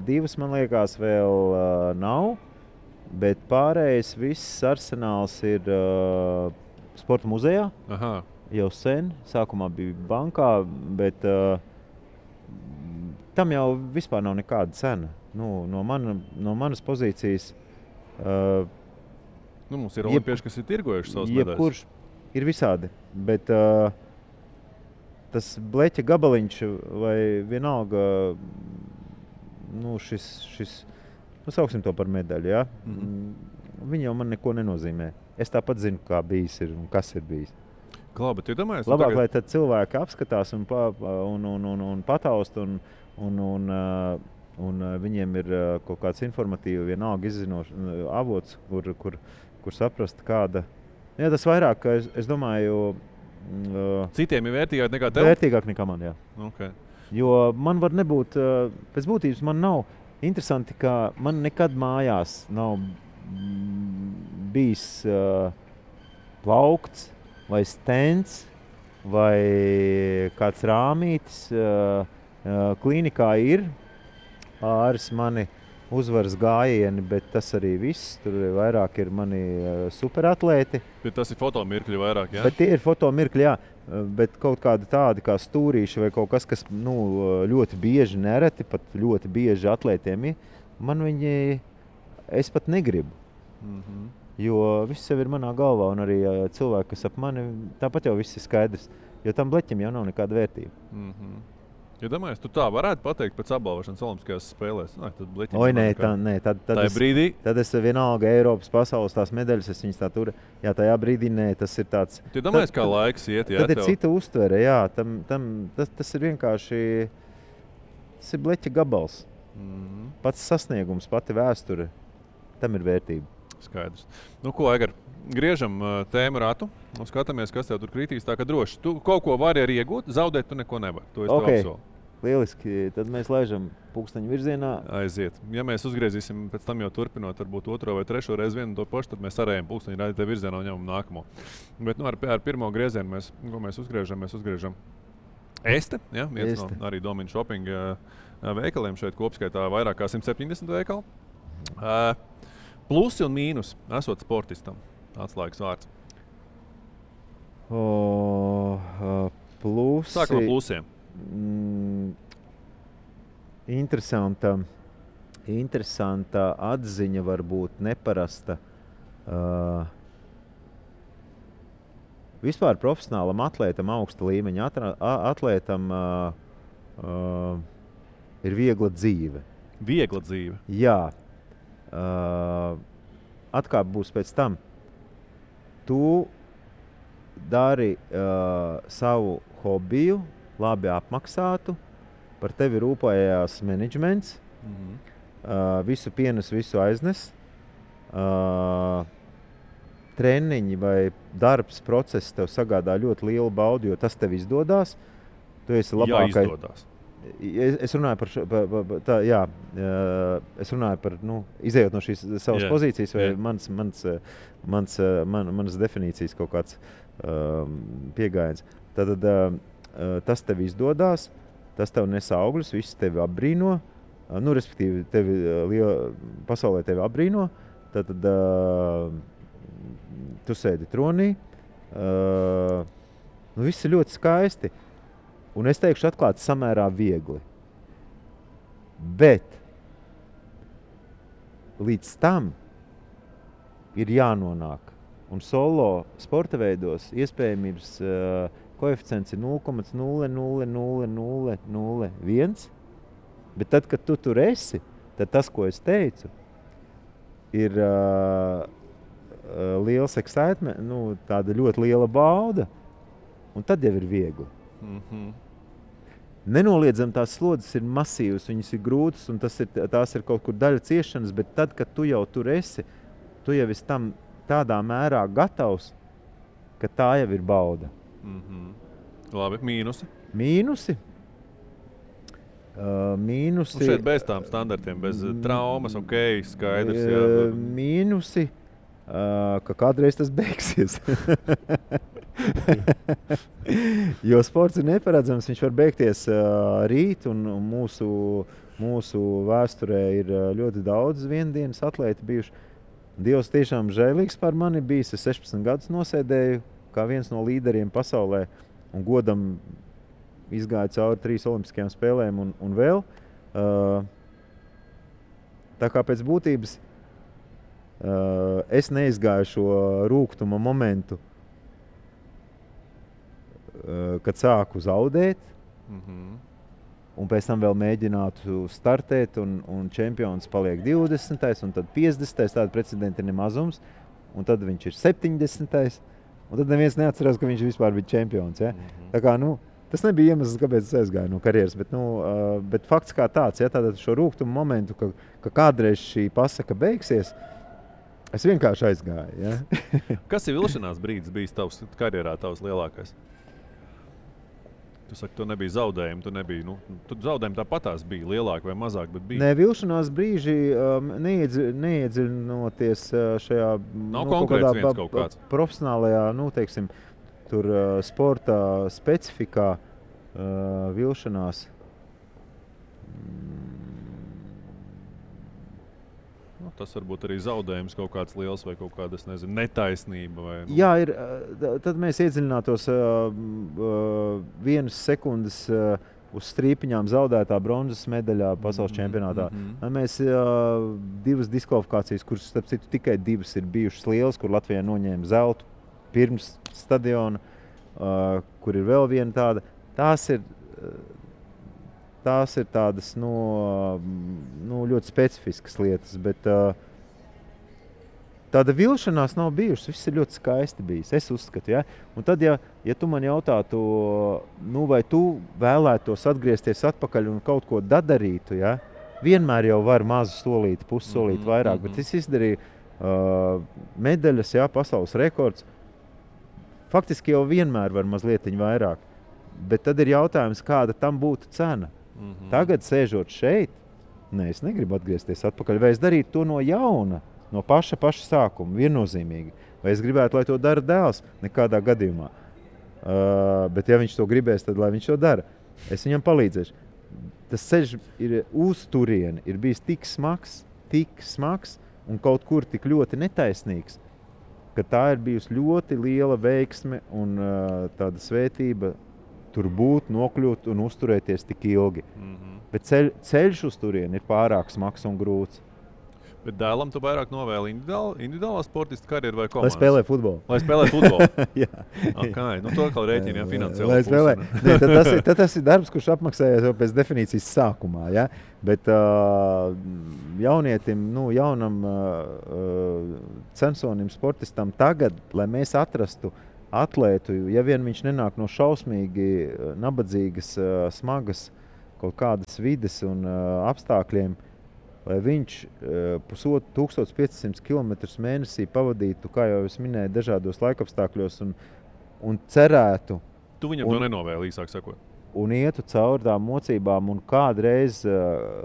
2, man liekas, vēl nav, bet pārējais viss arsenāls ir sporta muzejā. Aha. Jau sen, sākumā bija bankā, bet tam jau vispār nav nekāda cena. No manas pozīcijas mums ir olimpieši, kas ir tirgojuši savas medaļas. Jebkurš ir visādi, bet tas bleķa gabaliņš vai vienalga, šis sauksim to par medaļu, ja? Viņi jau man neko nenozīmē. Es tāpat zinu, kā bijis ir un kas ir bijis. Bet iedomājies, labāk, lai tad cilvēki apskatās un pataust un viņiem ir kaut kāds informatīvi vienalga izzinošs avots, kur saprast kāda. Jā, tas vairāk, es domāju, citiem ir vērtīgāk nekā tev? Vērtīgāk nekā man, jā. Okay. Jo man var nebūt, pēc būtības man nav interesanti, ka man nekad mājās nav bijis plaukts vai stends, vai kāds rāmītis. Klīnikā ir pāris mani uzvaras gājieni, bet tas arī viss. Tur vairāk ir mani superatlēti. Bet tas ir fotomirkļi vairāk, jā? Bet tie ir fotomirkļi, jā. Bet kaut kādi tādi kā stūrīši vai kaut kas, kas ļoti bieži, nereti, pat ļoti bieži atlētiem ir, man viņi, es pat negribu. Jo viss jau ir manā galvā, un arī cilvēki, kas ap mani, tāpat jau viss ir skaidrs. Jo tam bleķim jau nav nekāda vērtība. Ja domājies, tu tā varētu pateikt pēc apbalvošanas olimpiskajās spēlēs? Tad brīdī? Tad es vienalga Eiropas pasaules tās medaļas, es viņas tā tur. Jā, tajā brīdī tas ir tāds. Tu domājies, kā laiks iet, jā? Tad ir cita uztvere, jā. Tas ir vienkārši, tas ir bleķa gabals. Pats sasniegums, pati vēsture, tam ir vērtība. Skaidrs. Ko, Aigar, griežam tēmu ratu un skatāmies, kas tev tur kritīs. Tā kā droši. Tu kaut ko vari arī iegūt, zaudēt tu neko nevar. To es tev apsolu. Lieliski. Tad mēs laižam pulksteņu virzienā. Aiziet. Ja mēs uzgriezīsim pēc tam jau turpinot, varbūt 2. vai 3. reizi vienu to pašu, tad mēs arējam pulksteņu rādītē virzienā un ņemam nākamo. Bet ar pirmo griezienu mēs uzgriežam Este, ja? Viens no arī Domina Shopping veikaliem šeit kopskaitā vairāk kā 170 veikali. Plusi un mīnus esot sportistam. Atslēgas vārds. Plusi. Sākam ar plusiem. Interesanta atziņa, varbūt neparasta. Vispār profesionālam atlētam, augsta līmeņa atlētam ir viegla dzīve. Viegla dzīve? Jā. Atkāp būs pēc tam. Tu dari savu hobiju, labi apmaksātu, par tevi rūpējās menedžments, visu pienes, visu aiznes, treniņi vai darbs, process tev sagādā ļoti lielu baudu, jo tas tev izdodās. Tu esi labākais. Jā, izdodās. Es runāju par es runāju par, izējot no šīs savas pozīcijas vai manas definīcijas kaut kāds piegājiens. Tad tas tev izdodās, tas tev nes augļus, viss tevi apbrīno, respektīvi pasaulē tevi apbrīno, tad tu sēdi tronī, viss ir ļoti skaisti. Un es teikšu atklāti samērā viegli. Bet līdz tam ir jānonāk. Un solo sporta veidos iespējamības koeficients ir 0,00001. Bet tad, kad tu tur esi, tad tas, ko es teicu, ir liels excitement, tāda ļoti liela bauda. Un tad jau ir viegli. Nenoliedzami tās slodzes ir masīvas, viņas ir grūtas un tās ir kaut kur daļa ciešanas, bet tad, kad tu jau tur esi, tu jau esi tam tādā mērā gatavs, ka tā jau ir bauda. Labi, mīnusi. Mīnusi. Mīnusi. Un šeit bez tām standartiem, bez traumas, ok, skaidrs. Jā. Mīnusi, ka kādreiz tas beigsies. Jo sports ir neparedzams, viņš var beigties rīt, un mūsu vēsturē ir ļoti daudz viendienas atlēti bijuši. Dievs tiešām žēlīgs par mani bijis. Es 16 gadus nosēdēju kā viens no līderiem pasaulē un godam izgāju cauri 3 olimpiskajām spēlēm un vēl. Tā kā pēc būtības es neizgāju šo rūgtuma momentu, kad sāku zaudēt, un pēc tam vēl mēģinātu startēt, un čempions paliek 20. un tad 50. Tāda precedenta ir nemazums, un tad viņš ir 70. un tad neviens neatcerās, ka viņš vispār bija čempions. Ja? Tā kā, tas nebija iemesls, kāpēc es aizgāju no karjeras, bet fakts kā tāds, ja, tātad šo rūgtumu momentu, ka kādreiz šī pasaka beigsies, es vienkārši aizgāju. Ja. Kas ir vilšanās brīdis bijis tavs karjerā, tavs lielākais? Tu saki, tu nebija zaudējumi, tu zaudējumi tāpatās bija lielāki vai mazāk, bet bija. Nē, vilšanās brīži neiedziļinoties šajā kaut kāds profesionālajā, teiksim, tur sporta specifikā vilšanās. Tas varbūt arī zaudējums kaut kāds liels vai kaut kāda, netaisnība. Vai, Jā, ir. Tad mēs iedziļinātos 1 sekundes uz strīpiņām zaudētā bronzas medaļā pasaules čempionātā. Mēs 2 diskvalifikācijas, kuras, starp citu, tikai 2 ir bijušas lielas, kur Latvijā noņēma zeltu pirms stadiona, kur ir vēl viena tāda. Tās ir tādas ļoti specifiskas lietas, bet tāda vilšanās nav bijušas. Viss ir ļoti skaisti bijis, es uzskatu. Ja? Un tad, ja tu man jautātu, vai tu vēlētos atgriezties atpakaļ un kaut ko darītu, ja? Vienmēr jau var mazu solīti, pussolīti vairāk, bet es izdarīju medaļas, pasaules rekords. Faktiski jau vienmēr var mazlietiņ vairāk, bet tad ir jautājums, kāda tam būtu cena. Tagad, sēžot šeit, es negribu atgriezties atpakaļ, vai es darītu to no jauna, no paša sākuma, viennozīmīgi. Vai es gribētu, lai to dara dēls? Nekādā gadījumā. Bet ja viņš to gribēs, tad lai viņš to dara. Es viņam palīdzēšu. Tas ceļš ir uz turieni, ir bijis tik smags un kaut kur tik ļoti netaisnīgs, ka tā ir bijusi ļoti liela veiksme un tāda svētība tur būt, nokļūt un uzturēties tik ilgi. Bet ceļš uz turieni ir pārāk smags un grūts. Bet dēlam tu vairāk novēli individuālā sportista karjeru vai komandas? Lai spēlē futbolu. Lai spēlē futbolu? Jā. Okay. To kā rēķini, finansiāli. Lai spēlē. Tad tas ir darbs, kurš apmaksājās jau pēc definīcijas sākumā. Ja? Bet jaunietim, jaunam censonim, sportistam tagad, lai mēs atrastu atlētu, ja vien viņš nenāk no šausmīgi nabadzīgas, smagas kaut kādas vides un apstākļiem, lai viņš 1500 km mēnesī pavadītu, kā jau es minēju, dažādos laikapstākļos un cerētu. Tu viņam to nenovēli, īsāk sakot. Un ietu cauri tām mocībām un kādreiz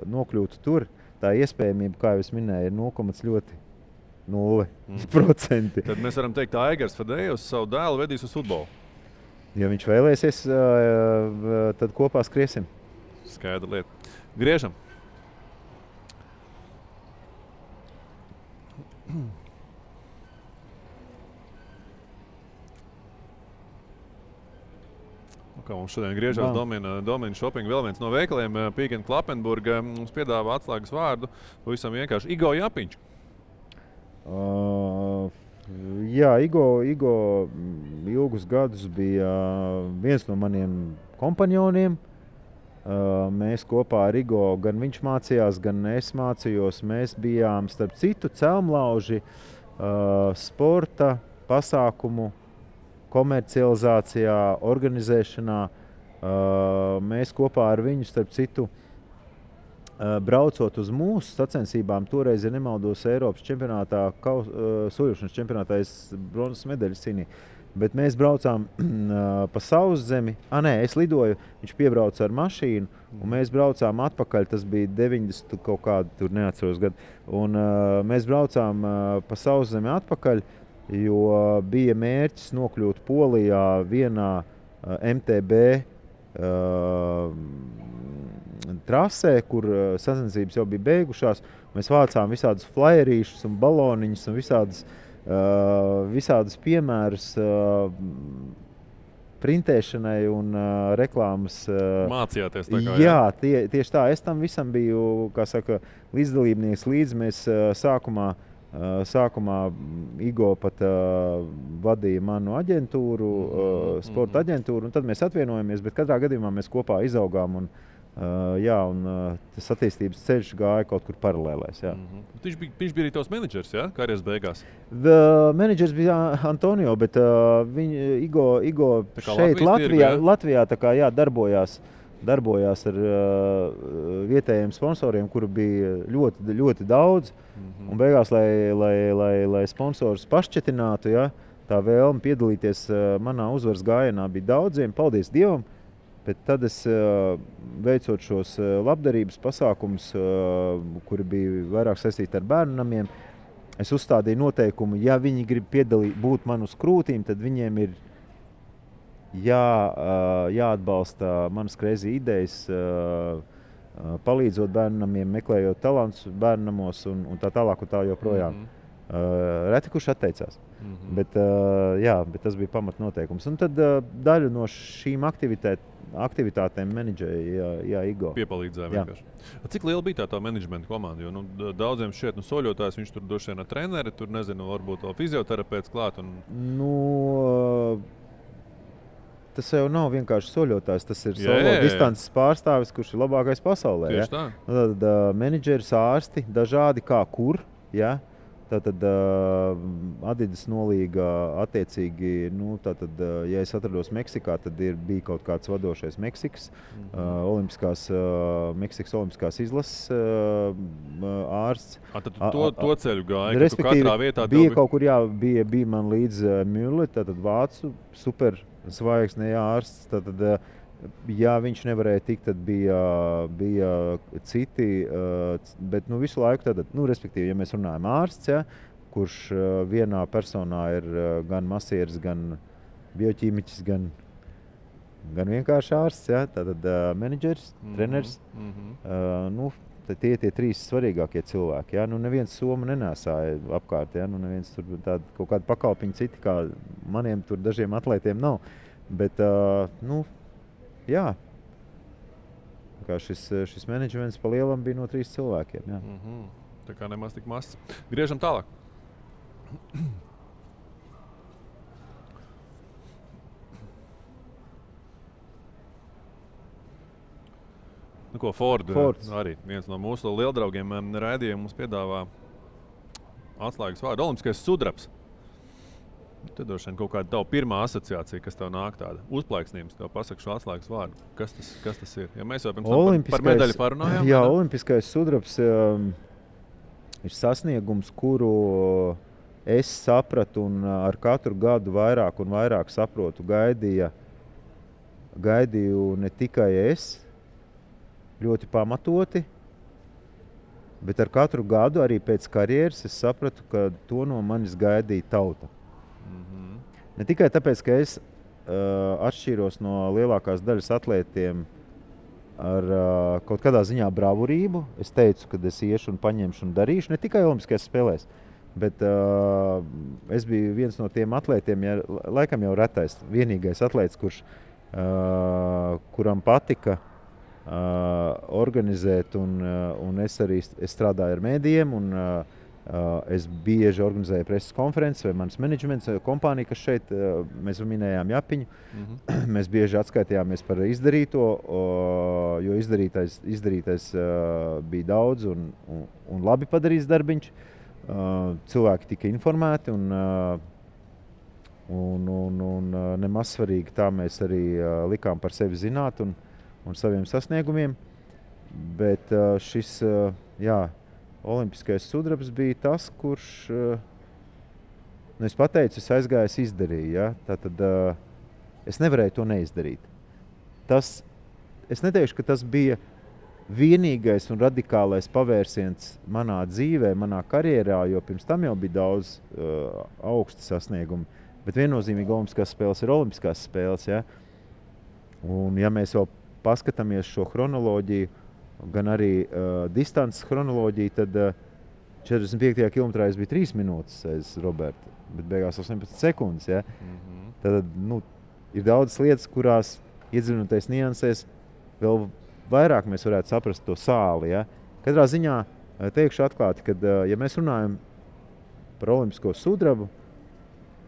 nokļūtu tur, tā iespējamība, kā jau es minēju, ir 0,0%. Tad mēs varam teikt, ka Aigars Fadejevs savu dēlu vedīs uz futbolu. Ja viņš vēlēsies, tad kopā skriesim. Skaidra lieta. Griežam. Kā mums šodien griežās Domina Shopping, vēl viens no veikaliem, Peek & Kloppenburg, mums piedāvā atslēgas vārdu, pavisam vienkārši Igo Japiņš. Jā, Igo ilgus gadus bija viens no maniem kompanioniem. Mēs kopā ar Igo, gan viņš mācījās, gan es mācījos. Mēs bijām, starp citu, celmlauži sporta pasākumu komercializācijā, organizēšanā. Mēs kopā ar viņu, starp citu, braucot uz mūsu sacensībām, toreiz, ja nemaldos, Eiropas čempionātā, soļošanas čempionātā es bronzas medaļas cīnīju. Bet mēs braucām pa Sauszemi. Es lidoju, viņš piebrauca ar mašīnu, un mēs braucām atpakaļ. Tas bija 90 kaut kādu, tur neatceros gadu. Un mēs braucām pa Sauszemi atpakaļ, jo bija mērķis nokļūt Polijā vienā MTB trasē, kur sacensības jau bija beigušās. Mēs vācām visādus flyerīšus un baloniņus un visādus piemērus printēšanai un reklāmas. Mācījāties tā kā, jā, tieši tā. Es tam visam biju, kā saka, līdzdalībnieks līdz. Mēs sākumā Igo pat vadīja manu aģentūru, sporta aģentūru, un tad mēs atvienojamies, bet katrā gadījumā mēs kopā izaugām. Un tas attīstības ceļš gāja kaut kur paralēlēs. Viņš bija arī tavs menedžers, ja? Karjeras beigās? Menedžers bija Antonio, bet Igo šeit Latvijā tā kā, darbojās ar vietējiem sponsoriem, kuru bija ļoti, ļoti daudz. Un beigās, lai sponsors pašķetinātu, tā vēlme piedalīties manā uzvaras gājienā bija daudziem, paldies Dievam. Bet tad es veicot šos labdarības pasākumus, kuri bija vairāk saistīti ar bērnu namiem, es uzstādīju noteikumu, ja viņi grib būt man uz krūtīm, tad viņiem ir jāatbalsta manas crazy idejas, palīdzot bērnu namiem, meklējot talantus bērnu namos un tā tālāk un tā joprojām. Reti kurš atteicās. Bet tas bija pamatnoteikums. Un tad daļu no šīm aktivitātēm menedžēja Igo. Piepalīdzēja vienkārši. Cik liela bija tā menedžmenta komanda? Jo daudziem šķiet, soļotājs, viņš tur droši vien ar treneri, tur nezinu, varbūt vēl fizioterapeits klāt. Tas jau nav vienkārši soļotājs, tas ir solo distances pārstāvis, kurš ir labākais pasaulē. Tieši tā. Tad menedžeris, ārsti, dažādi kā kur, Tātad Adidas nolīga attiecīgi, ja es atrados Meksikā, tad bija kaut kāds vadošais Meksikas olimpiskās izlases ārsts. Tad to ceļu gāja, ka tu katrā vietā bija kaut kur, bija man līdz Müller, tātad vācu super zvaigzne ārsts, tātad ja viņš nevarēja tikt, tad bija citi, bet visu laiku tātad, respektīvi, ja mēs runājam ārsts, kurš vienā personā ir gan masieris, gan bioķīmiķis, gan vienkārši ārsts, tātad menedžeris, treneris, tie trīs svarīgākie cilvēki, neviens somu nenēsāja apkārt, neviens tur tāda kaut kāda pakalpiņa citi, kā maniem tur dažiem atlētiem nav, bet, šis menedžments pa lielam bija no 3 cilvēkiem. Tā kā nemaz tik mazs. Griežam tālāk. Fords arī viens no mūsu lieldraugiem raidījumā mums piedāvā atslēgas vārdu olimpiskais sudrabs. Tad droši vien kaut kāda tava pirmā asociācija, kas tev nāk tāda uzplaiksnības, tev pasaka šo atslēgas vārdu. Kas tas ir? Ja mēs jau pirms tam par medaļu parunājām. Jā, olimpiskais sudrabs ir sasniegums, kuru es sapratu un ar katru gadu vairāk un vairāk saprotu. Gaidīju ne tikai es, ļoti pamatoti, bet ar katru gadu arī pēc karjeras es sapratu, ka to no manis gaidīja tauta. Ne tikai tāpēc, ka es atšķīros no lielākās daļas atlētiem ar kaut kādā ziņā bravurību. Es teicu, ka es iešu un paņemšu un darīšu, ne tikai olimpiskajās spēlēs, bet es biju viens no tiem atlētiem, laikam jau retais, vienīgais atlēts, kuram patika organizēt, un es arī strādāju ar mēdījiem, un es bieži organizēju preses konferences vai mans menedžments, kompānija, kas šeit, mēs minējām Japiņu, mēs bieži atskaitījāmies par izdarīto, jo izdarītais bija daudz un labi padarīts darbiņš. Cilvēki tika informēti un nemaz svarīgi tā mēs arī likām par sevi zināt un saviem sasniegumiem, bet šis, olimpiskais sudrabs bija tas, kurš es pateicu, es aizgāju, es izdarīju. Ja? Tātad es nevarēju to neizdarīt. Es neteikšu, ka tas bija vienīgais un radikālais pavērsiens manā dzīvē, manā karjerā, jo pirms tam jau bija daudz augsti sasniegumi. Bet viennozīmīgi olimpiskās spēles ir olimpiskās spēles. Ja? Un ja mēs vēl paskatāmies šo chronoloģiju, gan arī distances chronoloģiju, tad 45. kilometrā es biju 3 minūtes aiz Roberta, bet beigās 18 sekundes. Ja? Tad ir daudzas lietas, kurās iedziļinoties niansēs, vēl vairāk mēs varētu saprast to sāli. Ja? Katrā ziņā teikšu atklāti, ka ja mēs runājam par olimpisko sudrabu,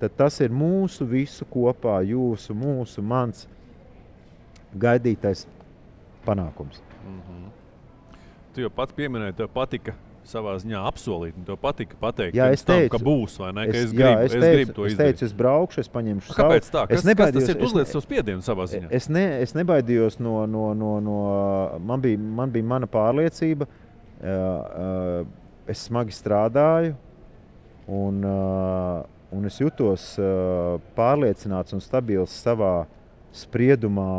tad tas ir mūsu visu kopā, jūsu, mūsu, mans gaidītais panākums. Tu jau pats pieminēji, tev patika savā ziņā apsolīt, un tev patika pateikt, jā, ka būs, vai ne? Ka es gribu to izdarīt. Es teicu, es braukšu, es paņemšu savu. Kāpēc tā? Kas tas ir uzliec savu spiedienu savā ziņā? Es nebaidījos man bija mana pārliecība, es smagi strādāju, un es jutos pārliecināts un stabils savā spriedumā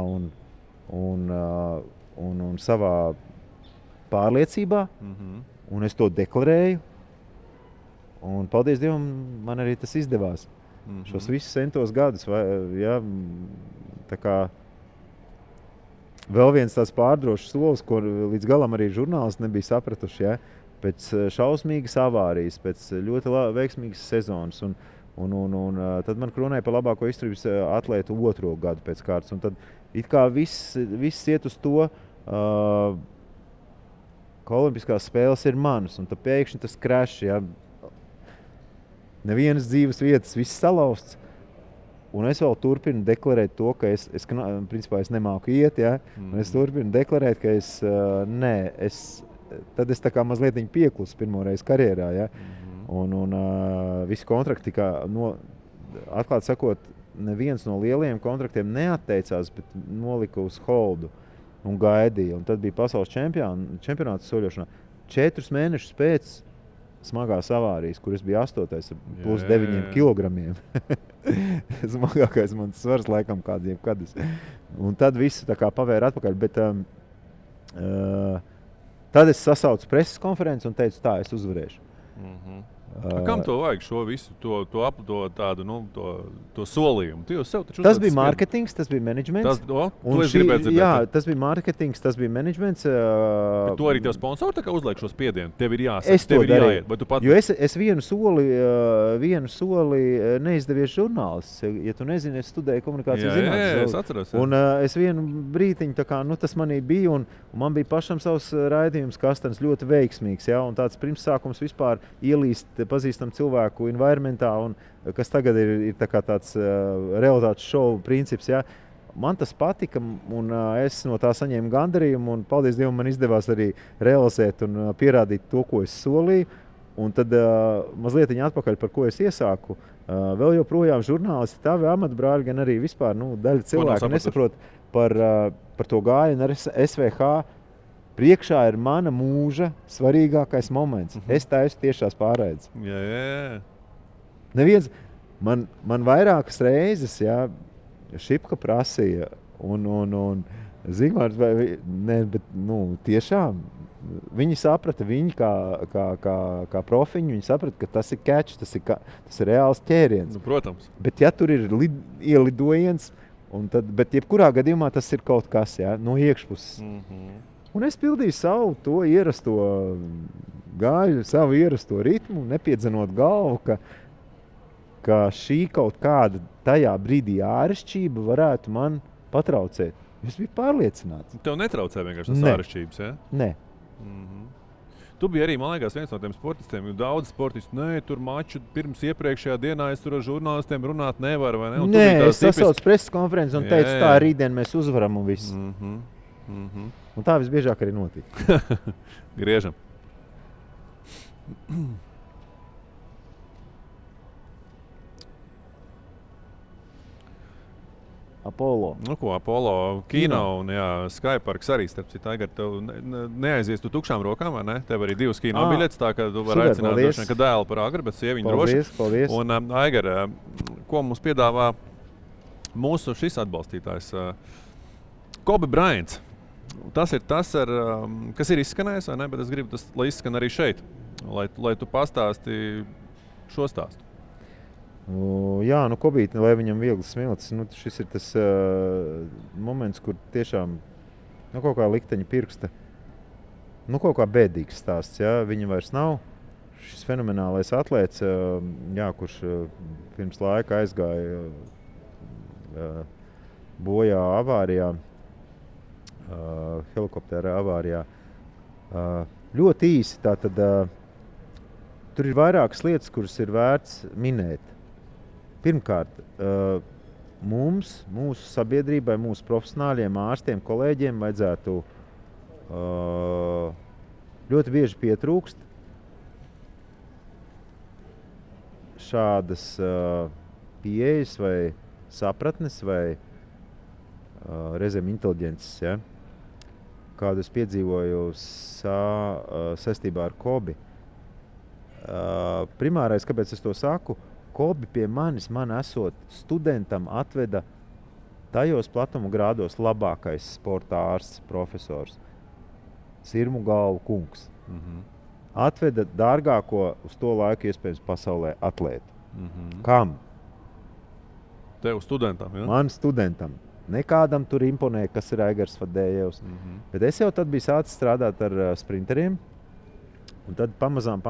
un savā pārliecībā. Un es to deklarēju, un paldies Dievam, man arī tas izdevās. Šos visus centos gadus, ja, tā kā vēl viens tāds pārdrošs solis, ko līdz galam arī žurnālisti nebija sapratuši, ja, pēc šausmīgas avārijas, pēc ļoti veiksmīgas sezonas, un tad man kronēja par labāko izturības atlētu 2. gadu pēc kārtas, un tad it kā viss iet uz to, ka olimpiskās spēles ir manas, un tad pēkšņi tas krešs, ja, nevienas dzīves vietas, viss salausts, un es vēl turpinu deklarēt to, ka principā es nemāku iet, ja, un es turpinu deklarēt, ka tad es tā kā mazliet pieklusu pirmoreiz karjerā, ja, un visi kontrakti tika, atklāt sakot, neviens no lielajiem kontraktiem neatteicās, bet nolika uz holdu. Un gaidīja. Un tad bija pasaules čempionāts soļošanā. 4 mēnešus pēc smagās avārijas, kur es biju 8. plus 9 kilogramiem. Smagākais mans svars laikam kādiem kadus. Un tad visu tā kā pavēra atpakaļ. Bet tad es sasaucu preses konferenci un teicu, tā, es uzvarēšu. Kam to vajag šo visu, to solījumu? Tas bija mārketings, tas bija menedžments. Tas bija mārketings, tas bija menedžments. Bet to arī tev sponsori tā kā uzliek šo spiedienu? Tev ir jāsaka, tev ir jāiet. Vai tu pat... Jo es vienu soli neizdevies žurnālists. Ja tu nezini, es studēju komunikācijas zinātnes. Jā, es atceros. Un es vienu brītiņu, tā kā, tas manī bija, un man bija pašam savs raidījums Kastanis ļoti veiksmīgs. Ja? Un tāds pirmsākums vispār ielīst pazīstam cilvēku environmentā, un kas tagad ir tā kā tāds realitātes šovu princips. Ja? Man tas patika, un es no tā saņēmu gandarījumu, un paldies Dievam, man izdevās arī realizēt un pierādīt to, ko es solīju. Un tad mazliet atpakaļ, par ko es iesāku. Vēl joprojām žurnālisti, tavi amatbrāļi, gan arī vispār daļa cilvēku nesaprot par to gājienu ar SVH. Priekšā ir mana mūža svarīgākais moments. Es taisu tiešās pārraides. Jā. Neviens, man vairākas reizes, ja, Šipka prasīja, un Zigmārs, bet tiešām viņi saprata, viņi kā profiņi, viņi saprata, ka tas ir catch, tas ir reāls ķēriens. Protams. Bet ja tur ir ielidojiens, bet jebkurā gadījumā tas ir kaut kas, ja, no iekšpuses. Un es pildīju savu to ierasto gāju, savu ierasto ritmu, nepiedzenot galvu, ka šī kaut kāda tajā brīdī āršķība varētu man patraucēt. Es biju pārliecināts. Tev netraucē vienkārši tas āršķības, ja? Nē. Tu biji arī, man liekas, viens no tiem sportistiem, jo daudz sportisti, tur maču pirms iepriekšējā dienā es tur ar žurnālistiem runāt nevaru, vai ne? Nē, es sasaucu preses konferenci un teicu, tā rītdien mēs uzvaram un viss. Un tā visbiežāk arī notika. Griežam. Apollo. Nu, ko Apollo kino un Skyparks arī, starp citu, Aigar, tev neaizies tu tukšām rokām, vai ne? Tev arī 2 kino biļetes, tā ka tu vari aicināt droši vien, ka dēlu par agri, bet sieviņu droši. Paldies. Un, Aigar, ko mums piedāvā mūsu šis atbalstītājs? Kobe Bryants. Tas ir tas, kas ir izskanējis, vai ne? Bet es gribu, lai izskan arī šeit, lai tu pastāsti šo stāstu. Jā, Kobīti, lai viņam viegli smilts, šis ir tas moments, kur tiešām kaut kā likteņa pirksta, kaut kā bēdīgs stāsts, jā, viņa vairs nav. Šis fenomenālais atlēts, kurš pirms laika aizgāja bojā avārijā, helikoptera avārijā. Ļoti īsi, tātad tur ir vairākas lietas, kuras ir vērts minēt. Pirmkārt, mūsu sabiedrībai, mūsu profesionāļiem, ārstiem, kolēģiem vajadzētu ļoti bieži pietrūkst šādas pieejas vai sapratnes vai reizēm inteliģences, ja? Kādu es piedzīvoju saistībā ar Kobi. Primārais, kāpēc es to saku, Kobi pie manis, man esot studentam, atveda tajos platuma grādos labākais sporta ārsts, profesors, Sirmu galvu kungs. Atveda dārgāko uz to laiku iespējams pasaulē atlētu. Kam? Tev studentam, ja? Man studentam. Nekādam tur imponē, kas ir Aigars Fadējevs. Bet es jau tad biju sācis strādāt ar sprinteriem. Un tad pamazām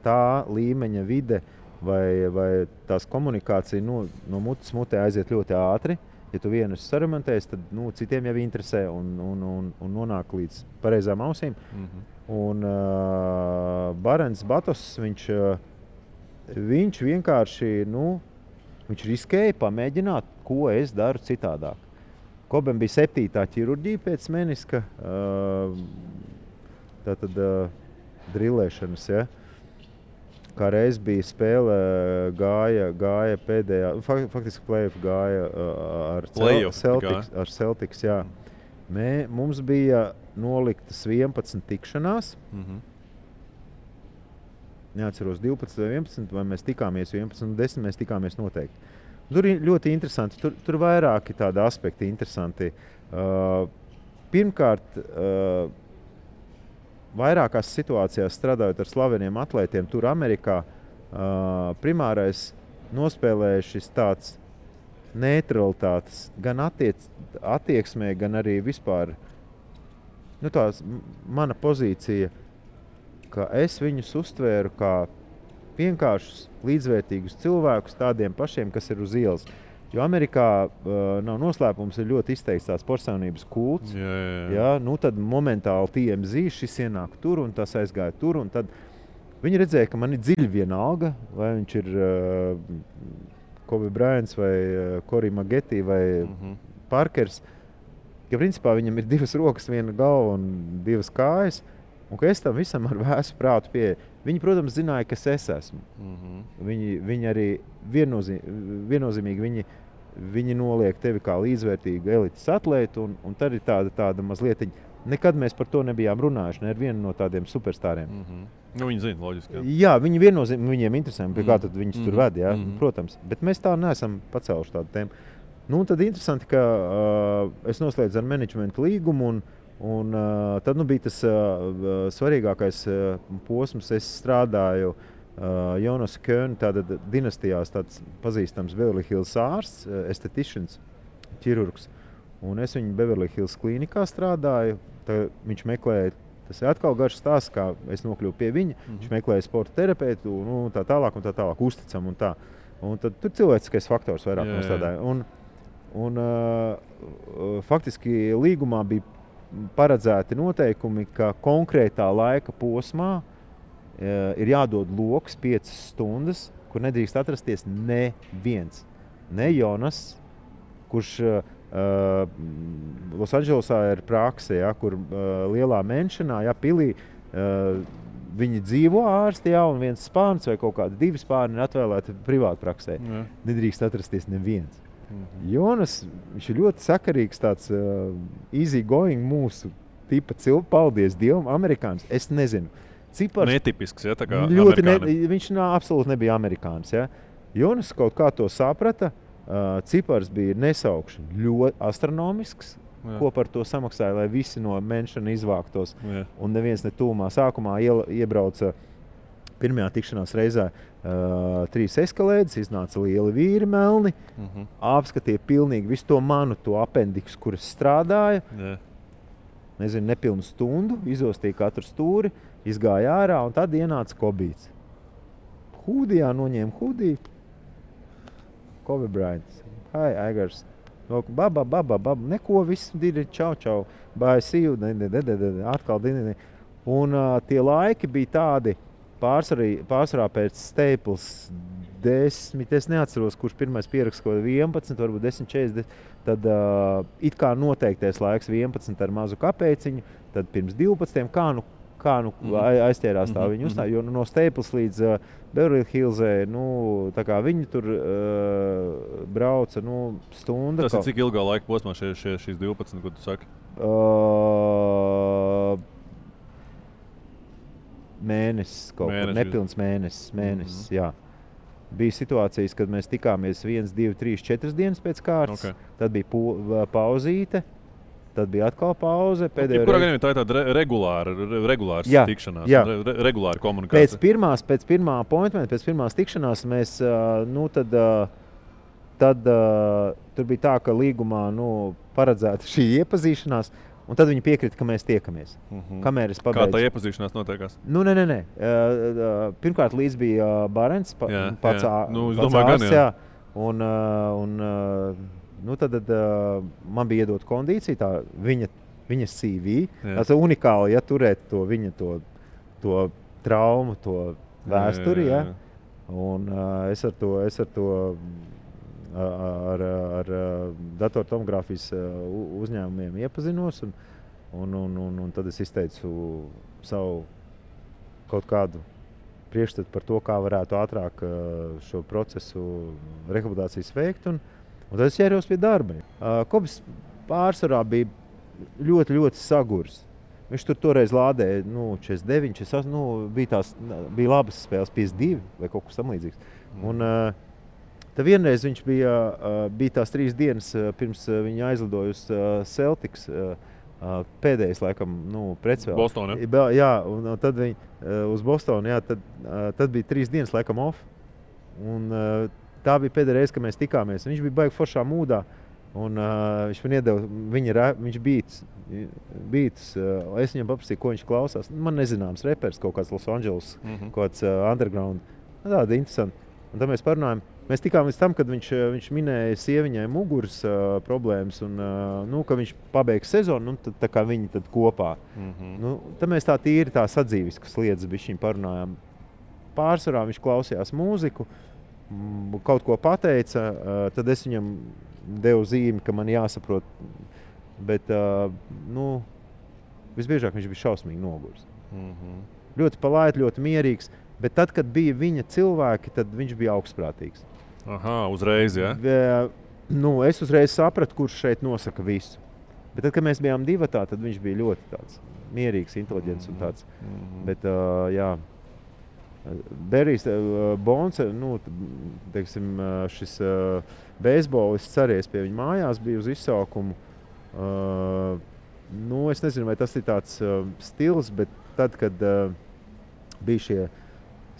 tā līmeņa vide vai tās komunikācija no mutes mutē aiziet ļoti ātri. Ja tu vienu esi saremontējis, tad citiem jau interesē un nonāk līdz pareizām ausīm. Un Barents Batos, viņš vienkārši, viņš riskēja pamēģināt, ko es daru citādāk. Kobem bija 7. ķirurģija pēc meniska, tātad drillēšanas, ja. Kā reiz bija spēle, gāja pēdējā, faktiski play-off gāja ar Celtics, jā. Mums bija noliktas 11 tikšanās. Neatceros 12 vai 11, vai mēs tikāmies 11 un 10, mēs tikāmies noteikti. Tur ir ļoti interesanti, tur vairāki tādi aspekti interesanti. Pirmkārt, vairākās situācijās strādājot ar slaveniem atlētiem, tur Amerikā primārais nospēlēja šis tāds neutralitātes gan attieksmē, gan arī vispār tās mana pozīcija, ka es viņus uztvēru kā vienkāršus līdzvērtīgus cilvēkus tādiem pašiem, kas ir uz ielas. Jo Amerikā nav noslēpums, ir ļoti izteikts tās personības kults. Jā. Tad momentāli TMZ šis ienāk tur un tas aizgāja tur. Un tad viņi redzēja, ka man ir dziļi vienalga, vai viņš ir Kobe Bryants vai Corey Maggette vai Parkers. Ka principā viņam ir 2 rokas, 1 galva un 2 kājas. Un ka es tam visam ar vēsu prātu pieeju. Viņi, protams, zināja, kas es esmu. Viņi arī viennozīmīgi viņi noliek tevi kā līdzvērtīgu elites atlētu, un tad ir tāda mazlietiņa. Nekad mēs par to nebijām runājuši, ne ar vienu no tādiem superstāriem. Viņi zina, loģiski. Jā, viņi viennozīmīgi, viņiem interesē, pie kā tad viņus tur ved, jā, protams. Bet mēs tā neesam pacēluši tādu tēmu. Tad interesanti, ka es noslēdzu ar menedžmentu līgumu, un tad bija tas svarīgākais posms. Es strādāju Jonas Köhn, tāda dinastijās tāds pazīstams Beverly Hills ārsts, estheticians, ķirurgs. Un es viņu Beverly Hills klīnikā strādāju. Viņš meklēja, tas ir atkal garš stāsts, kā es nokļuvu pie viņa. Viņš meklēja sporta terapeitu, tā tālāk, uzticam un tā. Un tad tur cilvēciskais faktors vairāk nostādāja. Un faktiski līgumā bija paredzēti noteikumi, ka konkrētā laika posmā ir jādod loks 5 stundas, kur nedrīkst atrasties neviens. Ne Jonas, kurš Losandželosā ir prakse, kur lielā menšanā, pilī, viņi dzīvo ārsti, un viens spārns vai kaut kādi 2 spārni ir atvēlēti privātpraksē. Nedrīkst atrasties neviens. Jonas, viņš ir ļoti sakarīgs, tāds easy going mūsu tipa cilvēks. Paldies Dievam, amerikānis. Es nezinu. Cipars Netipisks, ja, tā kā ļoti viņš absolūti nebija amerikānis. Ja. Jonas kaut kā to saprata. Cipars bija nesaukšana ļoti astronomisks. Jā. Ko par to samaksāja, lai visi no menšana izvāktos. Jā. Un neviens ne tūmā. Sākumā iebrauca pirmajā tikšanās reizē 3 eskalēdes, iznāca lieli vīri melni, apskatīja pilnīgi visu to manu, to apendiksu, kuras strādāja. Jā. Nezinu, nepilnu stundu, izostīja katru stūri, izgāja ārā un tad ienāca Kobīts. Hūdijā noņēma hūdiju. Kobe Bryant. Hi, Aigars. Baba, neko, viss diri, čau, bye, see you, atkal dini. Un tie laiki bija tādi pārsvarā pēc Staples 10, es neatceros, kurš pirmais pieraksts, 11, varbūt 10.40, tad it kā noteiktais laiks 11 ar mazu kapēciņu, tad pirms 12, kā aizķērās tā viņa uzstāja, jo no Staples līdz Beverly Hillsē, tā kā viņi tur brauca, stunda. Tas ir cik ilgā laika posmā šīs 12, ko tu saki? Mēnesis kaut kur, nepilns mēnesis, jā. Bija situācijas, kad mēs tikāmies 1, 2, 3, 4 dienas pēc kārtas, tad bija pauzīte. Tad bija atkal pauze. Kurā gadījumā tā ir tāda regulāra tikšanās, regulāra komunikācija? Pēc pirmā appointmenta, pēc pirmās tikšanās mēs, tad tur bija tā, ka līgumā paredzēta šī iepazīšanās, un tad viņi piekrita, ka mēs tiekamies. Kamēr es pabeidzu. Kā tā iepazīšanās notiekās? Nē. Pirmkārt līdz bija Barents, pats ārsts, jā. Tad man bija iedot kondīcija, tā viņa CV. Tas ir unikāli, ja turēt to viņa to traumu, to vēsturi. Jā. Un es ar to ar datortomogrāfijas uzņēmumiem iepazinos. Un tad es izteicu savu kaut kādu priekšstatu par to, kā varētu ātrāk šo procesu rehabilitācijas veikt. Un tad es ķēros pie darba. Kobis pārsvarā bija ļoti, ļoti sagurs. Viņš tur toreiz lādēja 49, 48, bija labas spēles, 52 vai kaut kas tam līdzīgs. Un tad vienreiz viņš bija tās 3 dienas pirms viņa aizlidoja uz Celtics, pēdējais laikam pretspēle. Bostonā, ja? Jā, un tad viņi uz Bostonu, jā, tad bija 3 dienas laikam off. Un tā bija pēdējā reize, kad mēs tikāmies. Viņš bija baigi foršā mūdā, un viņš man iedeva viņš beats. Es viņam paprasīju, ko viņš klausās. Man nezināms repers, kaut kāds Los Angeles, kaut kāds underground. Tāda interesanti. Un tad mēs parunājam. Mēs tikām līdz tam, kad viņš minēja sieviņai muguras problēmas, un ka viņš pabeigs sezonu, tad tā kā viņi tad kopā. Tad mēs tā tīri tā sadzīviskas lietas bišķiņ parunājām. Pārsvarā viņš klausījās mūziku, kaut ko pateica, tad es viņam devu zīmi, ka man jāsaprot, bet visbiežāk viņš bija šausmīgi noguris. Ļoti palaid, ļoti mierīgs, bet tad, kad bija viņa cilvēki, tad viņš bija augstprātīgs. Uzreiz, ja? Es uzreiz sapratu, kurš šeit nosaka visu. Bet tad, kad mēs bijām divatā, tad viņš bija ļoti tāds mierīgs, inteliģents un tāds. Bet, jā. Berijs Bonds, teiksim, šis beisbolists ceries pie viņa mājās, bija uz izsaukumu. Es nezinu, vai tas ir tāds stils, bet tad, kad bija šie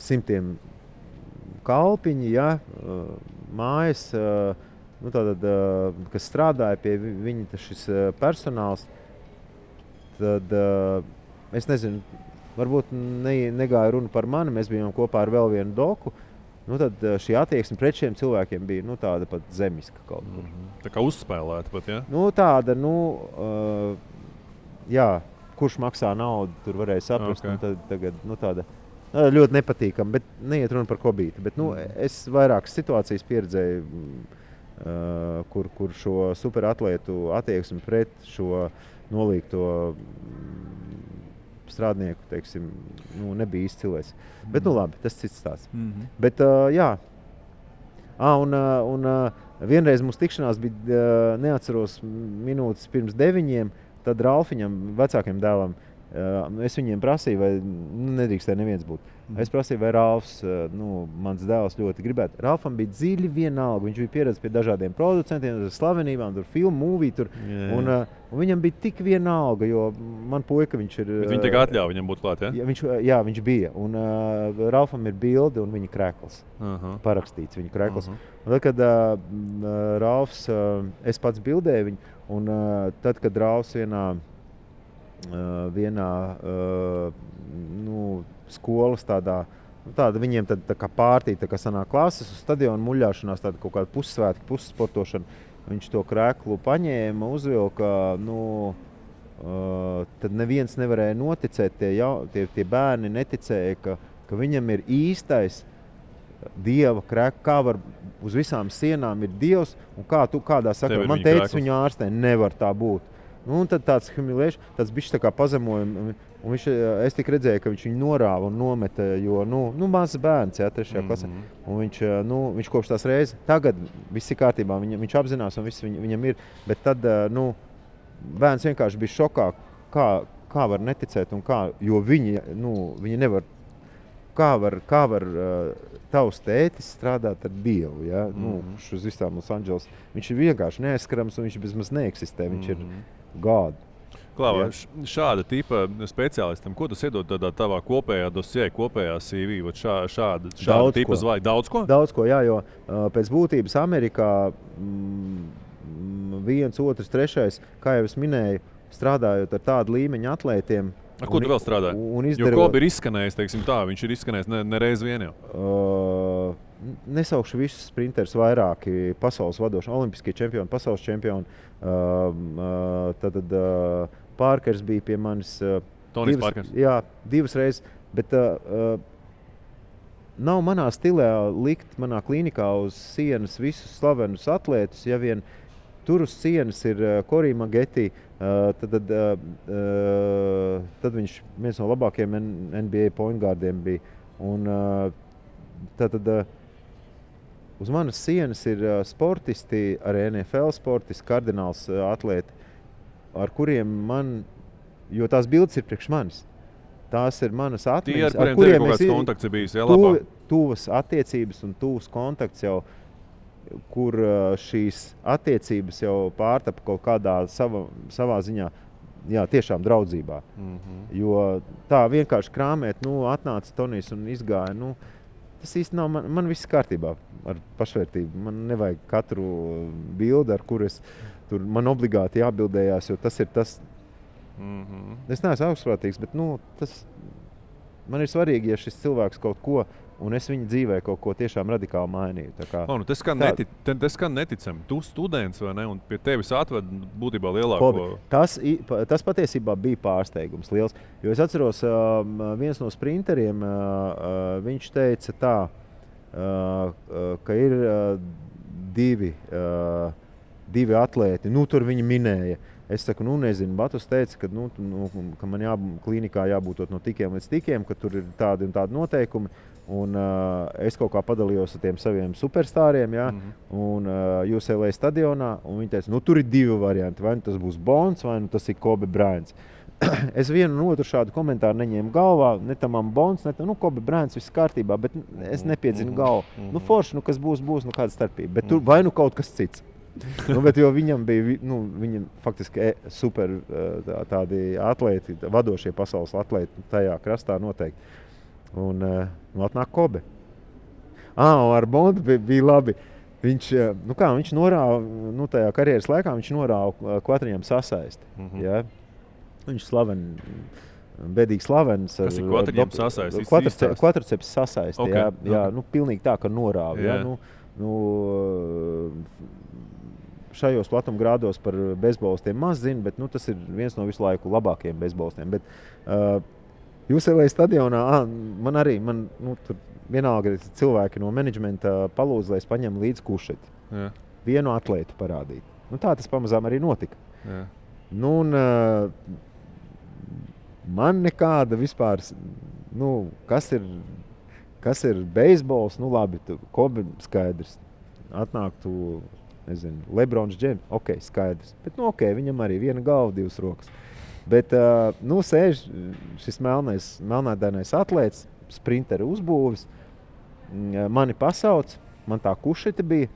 100 kalpiņi, ja, mājas, kas strādāja pie viņa šis personāls, tad es nezinu, varbūt negāja runa par mani, mēs bijām kopā ar vēl vienu doku. Tad šī attieksme pret šiem cilvēkiem bija tāda pat zemiska kaut kur. Tā kā uzspēlēta pat, ja? Tāda, jā, kurš maksā naudu, tur varēja saprast. Tad tagad, tāda ļoti nepatīkama, bet neiet runa par Kobīti. Bet, es vairākas situācijas pieredzēju, kur šo superatlētu attieksmi pret šo nolīgto strādnieku, teiksim, nebija izcilēs. Bet, labi, tas cits stāsts. Bet, jā. Un vienreiz mums tikšanās bija, neatceros, minūtes pirms 9, tad Ralfiņam, vecākiem dēlam, es viņiem prasīju, vai nedrīkstēja neviens būt. Es prasīju, vai Ralfs, mans dēls ļoti gribētu. Ralfam bija dziļi vienalga. Viņš bija pieredzējis pie dažādiem producentiem, slavenībām, tur filmu, mūvī tur. Un viņam bija tik vienalga, jo man puika viņš ir... Bet viņi tiek atļauj viņam būt klāt, ja? Jā, viņš bija. Un Ralfam ir bilde un viņa krekls. Parakstīts viņa krekls. Un tad, kad Ralfs, es pats bildēju viņu, un tad, kad Ralfs vienā skolas tāda viņiem tā kā pārtī, tā kā sanāk klases uz stadionu muļāšanās, tāda kaut kāda pussvētki, pussportošana. Viņš to kreklu paņēma, uzvilka, tad neviens nevarēja noticēt, tie bērni neticēja, ka viņam ir īstais Dieva krekls, kā var uz visām sienām ir Dievs, un kādā saka, man teica viņu ārstē, nevar tā būt. Un tad tāds humiliēšs, tāds bišķi tā kā pazemojumi. Un es tik redzēju, ka viņš viņu norāva un nometa, jo, mazs bērns, 3. klasē. Un viņš kopš tās reizes, tagad viss ir kārtībā, viņš apzinās un viss viņam ir. Bet tad, bērns vienkārši bija šokā, kā var neticēt un kā, jo viņi nevar, kā var tavs tētis strādāt ar Dievu, ja? Uz visām Los Angeles. Viņš ir vienkārši neaizskarams un viņš bezmaz neeksistē, viņš ir God. Klau, šāda tipa speciālistam, ko tas iedod tādā tavā kopējā dosjē, kopējā CV, šāda tipa zvaigžņa? Daudz ko? Daudz ko, jā, jo pēc būtības Amerikā 1, 2, 3, kā jau es minēju, strādājot ar tādu līmeņu atlētiem. Ko tu vēl strādāji? Jo Kobe ir izskanējis, teiksim tā, viņš ir izskanējis nereiz vien jau. Nesaukšu visus sprinterus, vairāki pasaules vadoši, olimpiskie čempioni, pasaules čempioni. Tad Parkers bija pie manis. Tonijs Parkers? Jā, 2 reizes. Bet nav manā stilē likt manā klīnikā uz sienas visus slavenus atlētus. Ja vien tur uz sienas ir Corey Maggette, tad viņš viens no labākajiem NBA point guardiem bija. Un uz manas sienas ir sportisti, arī NFL sportisti, kardināls atlēti, ar kuriem jo tās bildes ir priekš manis. Tās ir manas atmiņas, ar kuriem kaut kāds kontakts ir bijis, tuvas attiecības un tuvas kontakts jau, kur šīs attiecības jau pārtapa kaut kādā savā ziņā, jā, tiešām draudzībā. Jo tā vienkārši krāmēt, atnāca Tonijs un izgāja, tas īsti nav, man viss kārtībā ar pašvērtību. Man nevajag katru bildi, ar kur man obligāti jābildējās, jo tas ir tas. Es neesmu augstprātīgs, bet man ir svarīgi, ja šis cilvēks kaut ko, un es viņa dzīvē kaut ko tiešām radikāli mainīju. Tas skan neticami. Tu students, vai ne? Un pie tevis atved būtībā lielāko... Tas patiesībā bija pārsteigums liels. Jo es atceros, viens no sprinteriem, viņš teica tā, ka ir divi atlēti. Tur viņi minēja. Es saku, nezinu, Batus teica, ka man klīnikā jābūt no tikiem līdz tikiem, ka tur ir tādi un tādi noteikumi. Un es kaut kā padalījos ar tiem saviem superstāriem, ja? Un UCLA stadionā, un viņi teica, tur ir 2 varianti, vai tas būs Bonds, vai tas ir Kobe Bryants. Es vienu un otru šādu komentāru neņēmu galvā, ne tamam Bonds, ne tam, Kobe Bryants, viss kārtībā, bet es nepiedzinu galvu. Forši, kas būs, kāda starpība, bet tur vai kaut kas cits. Bet jo viņam bija, viņam faktiski super tādi atlēti, vadošie pasaules atlēti tajā krastā noteikti. Un atnāk Kobe. Ar Bondu bija labi. Viņš norāva, tajā karjeras laikā viņš norāva kvatriņam sasaisti. Ja? Viņš bedīgi slavens. Kas ir kvatriņam sasaisti? Kvatriceps sasaisti, okay. Jā, pilnīgi tā, ka norāva. Yeah. Šajos platumgrādos par bezbolistiem maz zinu, bet tas ir viens no visu laiku labākajiem bezbolistiem. Bet UCLA stadionā tur vienalga cilvēki no menedžmenta palūdz, lai es paņemu līdz kušeti. Yeah. Vienu atlētu parādīt. Tā tas pamazām arī notika. Yeah. Man nekāda vispār, kas ir beisbols, labi, Kobe skaidrs. Atnāk tu nezinu, Lebrons Džems, ok, skaidrs. Bet, nu, ok, viņam arī viena galva, 2 rokas. Bet, nu, sēž šis melnādainais atlēts, sprinteri uzbūvis, mani pasauc, man tā kušeta bija,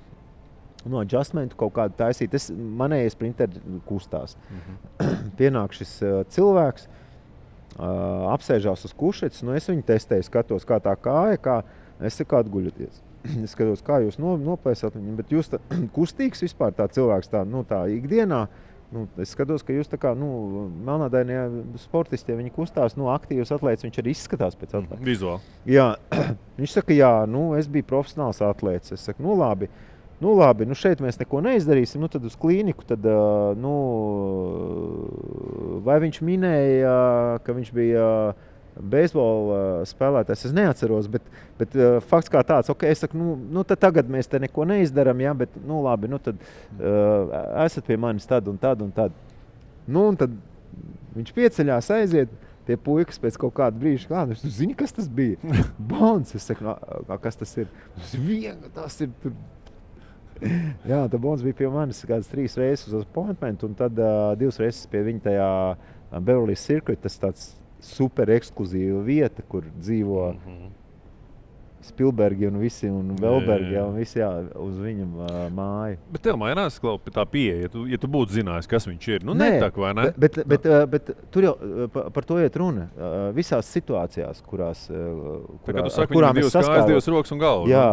no adjustmentu kaut kādu taisīt. Manējie sprinteri kustās. Pienāk šis cilvēks, apsēžās uz kušetes, nu es viņu testēju, skatos, kā tā kāja, es saku atguļoties. Es skatos, kā jūs noplēsat viņu, bet jūs kustīgs vispār tā cilvēks tā ikdienā. Es skatos, ka jūs tā kā, melnādainie sportisti, ja viņi kustās, aktīvs atlēts, viņš arī izskatās pēc atlētas. Vizuāli. Jā, viņš saka, jā, es biju profesionāls atlēts. Es saku, labi, šeit mēs neko neizdarīsim, tad uz klīniku, tad, vai viņš minēja, ka viņš bija beisbola spēlētājs, es neatceros, bet fakts kā tāds, ok, es saku, tad tagad mēs te neko neizdaram, jā, bet, labi, tad esat pie manis tad un tad un tad. Un tad viņš pieceļās, aiziet pie puikas pēc kaut kāda brīža, viņš zina, kas tas bija. Bons, es saku, kas tas ir? Tas ir tur. Jā, tā Bons bija pie manis kādas 3 reizes uz appointment, un tad 2 reizes pie viņa tajā Beverly Circuit, tas tāds super ekskluzīva vieta, kur dzīvo Spielbergi un visi, un Velbergi, un visi uz viņa māju. Bet tev mainās tā pieeja, ja tu būtu zinājis, kas viņš ir. Netak, vai ne? Bet tur jau par to iet runa. Visās situācijās, kurās tu saki, viņam 2 kājas, 2 rokas un galva. Jā,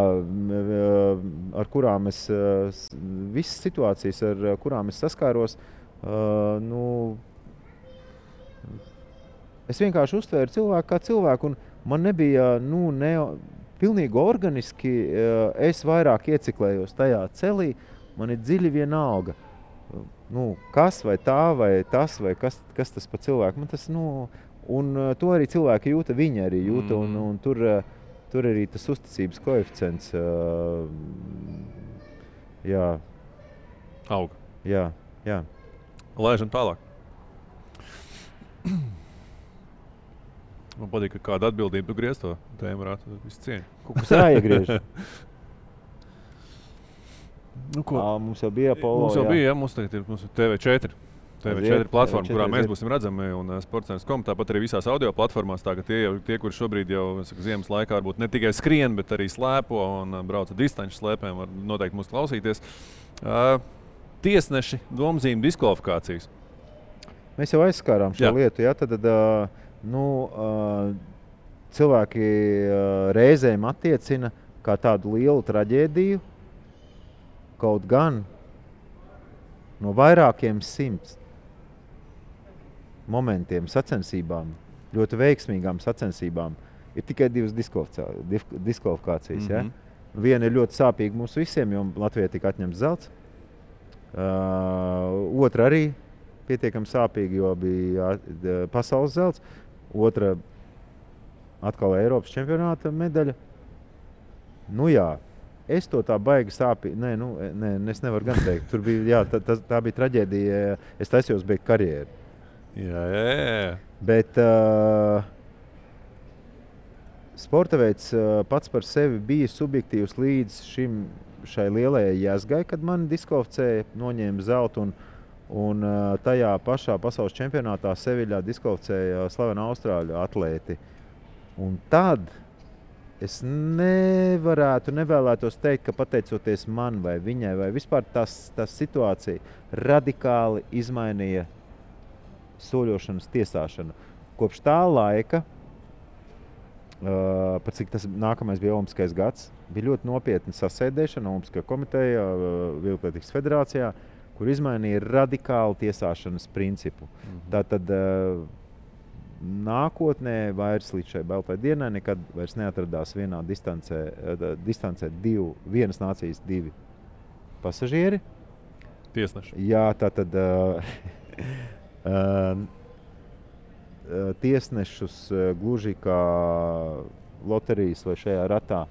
ar kurām visas situācijas, ar kurām es saskāros, es vienkārši uztvēru cilvēku kā cilvēku, un man nebija, pilnīgi organiski, es vairāk ieciklējos tajā celī, man ir dziļi vienalga. Kas vai tā, vai tas, vai kas tas pa cilvēku. Man tas, un to arī cilvēki jūta, viņi arī jūta, un tur arī tas uzticības koeficients, jā. Aug. Jā. Laižam tālāk. Man patīk, ka kāda atbildība tu griez to tēmu varētu visu cieņu. Kaut kas jāiegriež. Mums jau bija Apollo. Mums tagad ir TV4. TV4 platforma, kurā mēs būsim redzami, un sports.com, tāpat arī visās audio platformās. Tie, kuri šobrīd jau ziemas laikā varbūt ne tikai skrien, bet arī slēpo un brauca distanču slēpēm, var noteikti mūs klausīties. Tiesneši, domzīme, diskvalifikācijas. Mēs jau aizskārām šo lietu, jā, tad cilvēki reizēm attiecina kā tādu lielu traģēdiju, kaut gan no vairākiem 100 momentiem, sacensībām, ļoti veiksmīgām sacensībām, ir tikai 2 diskvalifikācijas. Ja? Viena ir ļoti sāpīga mums visiem, jo Latvijai tika atņemts zelts. Otra arī pietiekami sāpīga, jo bija pasaules zelts. Otra atkal Eiropas čempionāta medaļa. Jā, es to tā baigi sāpīgi. Es nevaru gan teikt. Tur bija, tā bija traģēdija. Es taisījos beigt karjeru. Jā. Bet sporta veids pats par sevi bija subjektīvs līdz šai lielajai jēzgai, kad mani diskvalificēja, noņēma zeltu un tajā pašā pasaules čempionātā Seviļā diskvalificēja slavena austrāļu atlēti. Un tad es nevēlētos teikt, ka pateicoties man vai viņai, vai vispār tas situācija radikāli izmainīja soļošanas tiesāšanu. Kopš tā laika, par cik tas nākamais bija Olimpiskais gads, bija ļoti nopietna sasēdēšana Olimpiskajā komiteja, Vieglatlētikas federācijā, kur izmainīja radikāli tiesāšanas principu. Tātad nākotnē vairs līdz šai baltai dienai nekad vairs neatradās vienā distancē vienas nācijas 2 pasažieri. Tiesneši. Jā, tātad tiesnešus gluži kā loterijas vai šajā ratā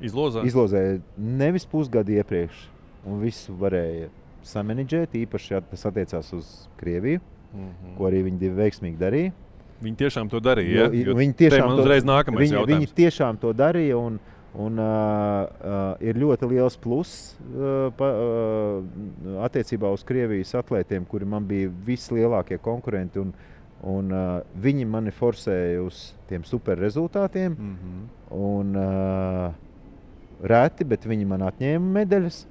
izlozēja nevis pusgadu iepriekš, un visu varēja samanedžēt, īpaši, ja tas attiecās uz Krieviju, ko arī viņi veiksmīgi darīja. Viņi tiešām to darīja, Viņi tiešām uzreiz nākamais jautājums. Viņi tiešām to darīja, Un ir ļoti liels pluss attiecībā uz Krievijas atlētiem, kuri man bija vislielākie konkurenti. Un viņi mani forsēja uz tiem super rezultātiem. Un reti, bet viņi man atņēma medaļas.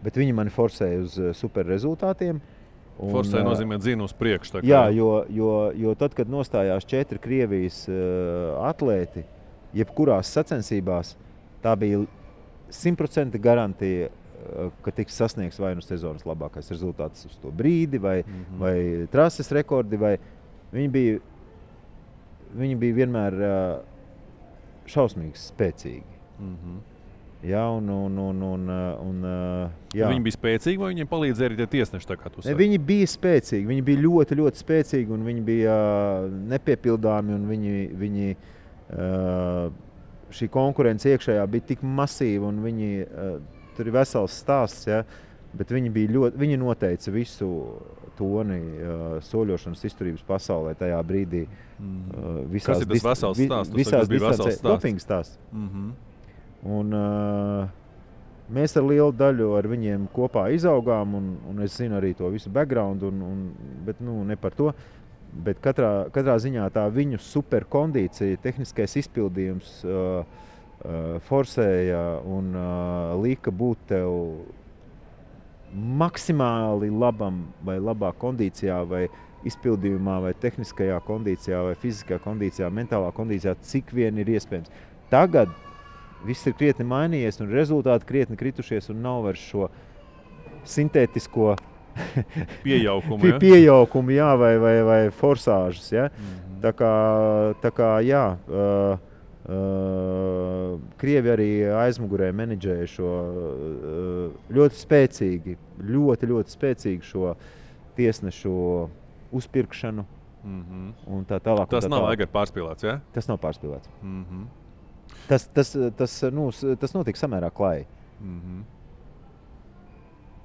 Bet viņi mani forsēja uz super rezultātiem. Forsēja nozīmē dzina uz priekšu. Jā, jo tad, kad nostājās 4 Krievijas atlēti, jebkurās sacensībās, tā bija 100% garantija, ka tiks sasniegts vai nu sezonas labākais rezultāts uz to brīdi, vai trases rekordi, vai viņi bija vienmēr šausmīgi spēcīgi. Jā, jā. Viņi bija spēcīgi, vai viņiem palīdzēja arī tie tiesneši, tā kā tu saki? Viņi bija spēcīgi, viņi bija ļoti, ļoti spēcīgi, un viņi bija nepiepildāmi, un viņi šī konkurence iekšējā bija tik masīva, un viņi, tur ir vesels stāsts, ja, bet viņi noteica visu toni soļošanas izturības pasaulē tajā brīdī. Kas ir tas vesels stāsts? Visās distancē, dopinga stāsts. Un mēs ar lielu daļu ar viņiem kopā izaugām, un es zinu arī to visu background, bet ne par to. Bet katrā ziņā tā viņu superkondīcija, tehniskais izpildījums forsēja un lika būt tev maksimāli labam vai labā kondīcijā, vai izpildījumā, vai tehniskajā kondīcijā, vai fiziskajā kondīcijā, mentālā kondīcijā, cik vien ir iespējams. Tagad viss ir krietni mainījies un rezultāti krietni kritušies un nav vairs šo sintētisko pieaukumu, jā, vai forsāžas, ja? Tā kā jā, Krievi arī aizmugurē menedžēja šo ļoti spēcīgu šo tiesnešu uzpirkšanu. Un tā tālāk. Tas nav pārspīlēts, ja? Tas nav pārspīlēts. Tas notika samērā klāji.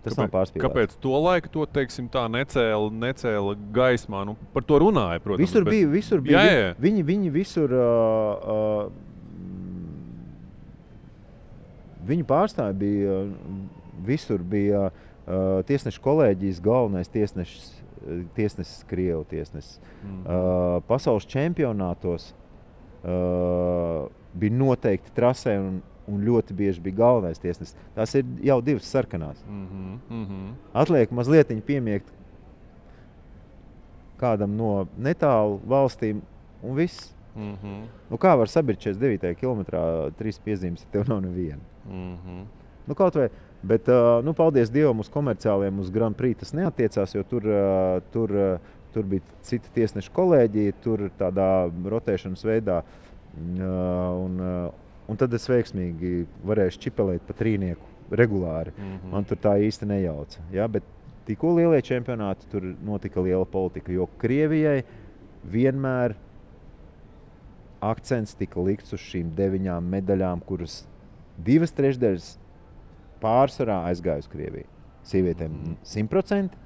Tas nav pārspīlēts. Kāpēc to laiku to, teiksim, tā necēla gaismā? Par to runāja, protams. Visur bija. Jā. Viņi visur, viņu pārstāvi bija, visur bija tiesnešu kolēģijas galvenais tiesnesis, Krievu tiesnesis. Pasaules čempionātos bija noteikti trasē un ļoti bieži bija galvenais tiesnesis. Tās ir jau 2 sarkanās. Atliek mazlietiņi piemiegt kādam no netālu valstīm un viss. Kā var sabirt 49. kilometrā 3 piezīmes, ja tev nav neviena? Kaut vai, bet paldies Dievam uz komerciāliem, uz Grand Prix tas neattiecās, jo tur bija cita tiesneša kolēģija, tur tādā rotēšanas veidā. Un tad es veiksmīgi varēju čipelēt pa trīnieku regulāri. Man tur tā īsti nejauca. Ja? Bet tikko lielie čempionāti, tur notika liela politika, jo Krievijai vienmēr akcents tika likts uz šīm 9 medaļām, kuras 2/3 pārsvarā aizgāja uz Krieviju. Sievietēm 100%,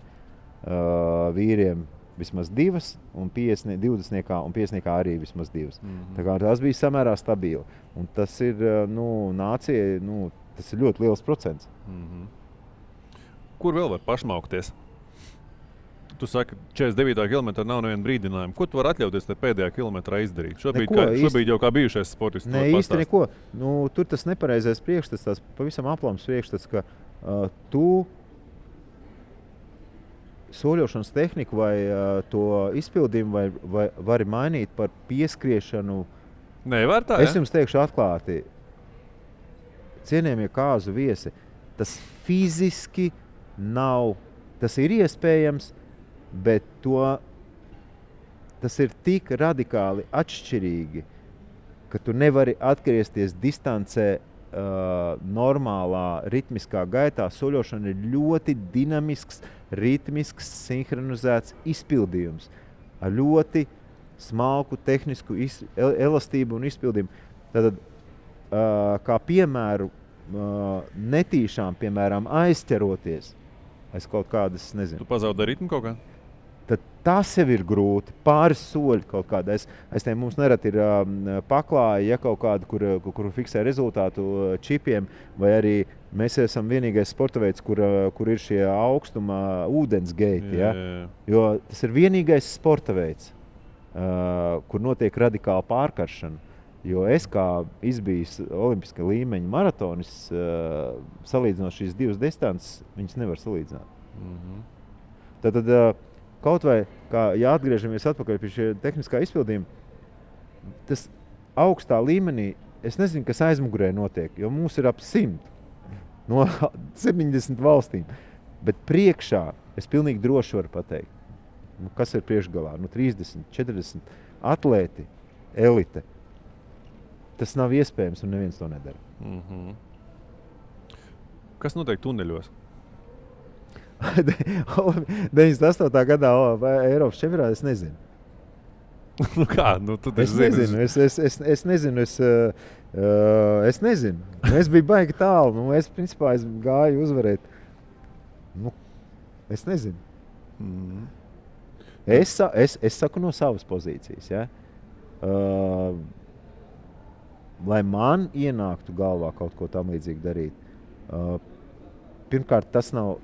vīriem vismaz 2, un 20 un 50 arī vismaz 2. Tā kā tas bija samērā stabili. Un tas ir, nācijai, tas ir ļoti liels procents. Kur vēl var pašmaukties? Tu saki, 49. kilometrā nav neviena brīdinājuma. Ko tu vari atļauties te pēdējā kilometrā izdarīt? Šobrīd jau kā bijušais sportists. Ne, īsti neko. Tur tas nepareizais priekšstats, tās pavisam aplams priekšstats, ka tu soļošanas tehniku vai to izpildījumu vari mainīt par pieskriešanu. Nevar tā, Es jums teikšu atklāti, cienījamie kāzu viesi, tas fiziski nav, tas ir iespējams, bet tas ir tik radikāli atšķirīgi, ka tu nevari atgriezties distancē normālā ritmiskā gaitā. Soļošana ir ļoti dinamisks, ritmisks, sinhronizēts izpildījums ar ļoti smalku tehnisku elastību un izpildījumu. Tad, kā piemēru, netīšām, piemēram, aizķeroties aiz kaut kādas, nezinu. Tu pazaudē ritmu kaut kā? tad tas jau ir grūti. Pāris soļi kaut kāda. Es te mums nerad ir paklāja, ja kaut kāda, kur fiksē rezultātu čipiem, vai arī mēs esam vienīgais sporta veids, kur ir šie augstuma ūdens geiti. Ja? Jo tas ir vienīgais sporta veids, kur notiek radikāla pārkaršana. Jo es kā izbijis olimpiska līmeņa maratonis, salīdzinot šīs divas distances, viņas nevar salīdzināt. Tad kaut vai, ja atgriežamies atpakaļ pie šie tehniskā izpildījuma, tas augstā līmenī, es nezinu, kas aizmugurē notiek, jo mums ir ap 100 no 70 valstīm. Bet priekšā es pilnīgi droši varu pateikt, kas ir priekšgalā, 30, 40 atlēti, elite. Tas nav iespējams, un neviens to nedara. Kas notiek tuneļos? 98. gadā Eiropas čempionātā es nezinu. Kā? Tu es nezinu. Es nezinu. Es nezinu. Es biju baigi tālu. Es principā gāju uzvarēt. Es nezinu. Es saku no savas pozīcijas. Ja? Lai man ienāktu galvā kaut ko tam līdzīgi darīt. Pirmkārt, tas nav.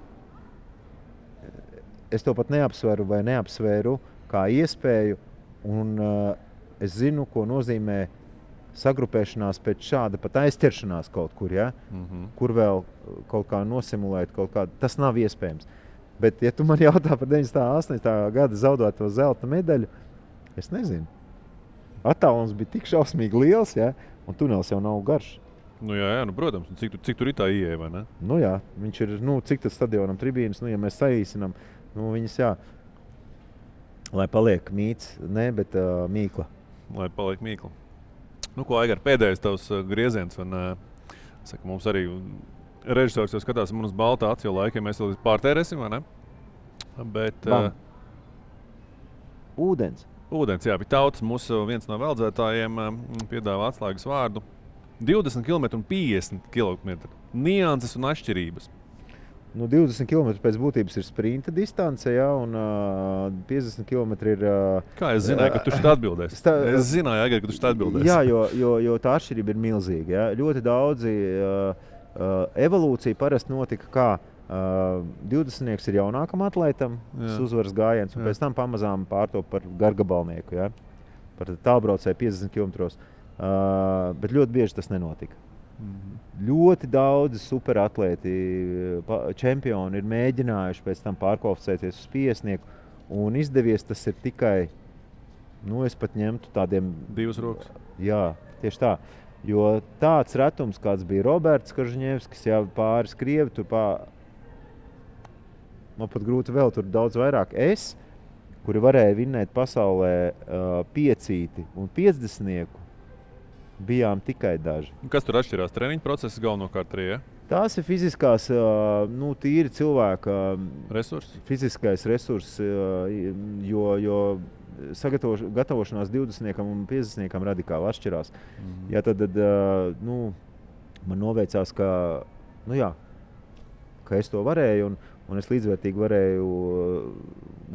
Es to pat neapsveru vai neapsvēru kā iespēju, un es zinu, ko nozīmē sagrupēšanās pēc šāda pat aizķeršanās kaut kur, ja? Kur vēl kaut kā nosimulēt kaut kādu. Tas nav iespējams. Bet, ja tu man jautā par 98. gada zaudēto zelta medaļu, es nezinu. Attālums bija tik šausmīgi liels, ja? Un tunelis jau nav garš. Jā, protams. Cik tur ir tā ieeja, vai ne? Jā, viņš ir, cik tas stadionam tribīnas, ja mēs saīsinām, viņas, jā, lai paliek mīts, ne, bet mīkla. Lai paliek mīkla. Ko, Aigar, pēdējais tavs grieziens, un saka, mums arī režisors jau skatās man uz baltā aci, jo laikiem mēs vēl pārtērēsim, vai ne? Bet... Ūdens. Ūdens, jā, bija tautas. Mūsu viens no veldzētājiem piedāvā atslēgas vārdu. 20 km un 50 km. Nianses un atšķirības. 20 km pēc būtības ir sprinta distance, ja, un 50 km ir... Kā es zināju, ka tu šeit atbildēsi? Es zināju, Aigar, ka tu šeit atbildēsi. Jā, jo tā atšķirība ir milzīga. Ja. Ļoti daudzi evolūcija parasti notika kā 20 ir jaunākam atlētam, tas uzvaras gājiens, un pēc tam pamazām pārtop par gargabalnieku, ja? Par tālbraucēju 50 km. Bet ļoti bieži tas nenotika. Ļoti daudzi superatlēti, čempioni ir mēģinājuši pēc tam pārkvalificēties uz 50, un izdevies tas ir tikai, es pat ņemtu tādiem... 2 rokas. Jā, tieši tā. Jo tāds retums, kāds bija Roberts Kažņevskis, jā, pāris krievi, man pat grūti vēl tur daudz vairāk. Kuri varēja vinnēt pasaulē 5 un 50, bijām tikai daži. Kas tur atšķirās? Treniņu process galvenokārt arī, ja? Tās ir fiziskās, tīri cilvēka resursi. Fiziskais resurs, jo gatavošanās 20 un 50 radikāli atšķirās. Ja, tad man noveicās, ka es to varēju, un es līdzvērtīgi varēju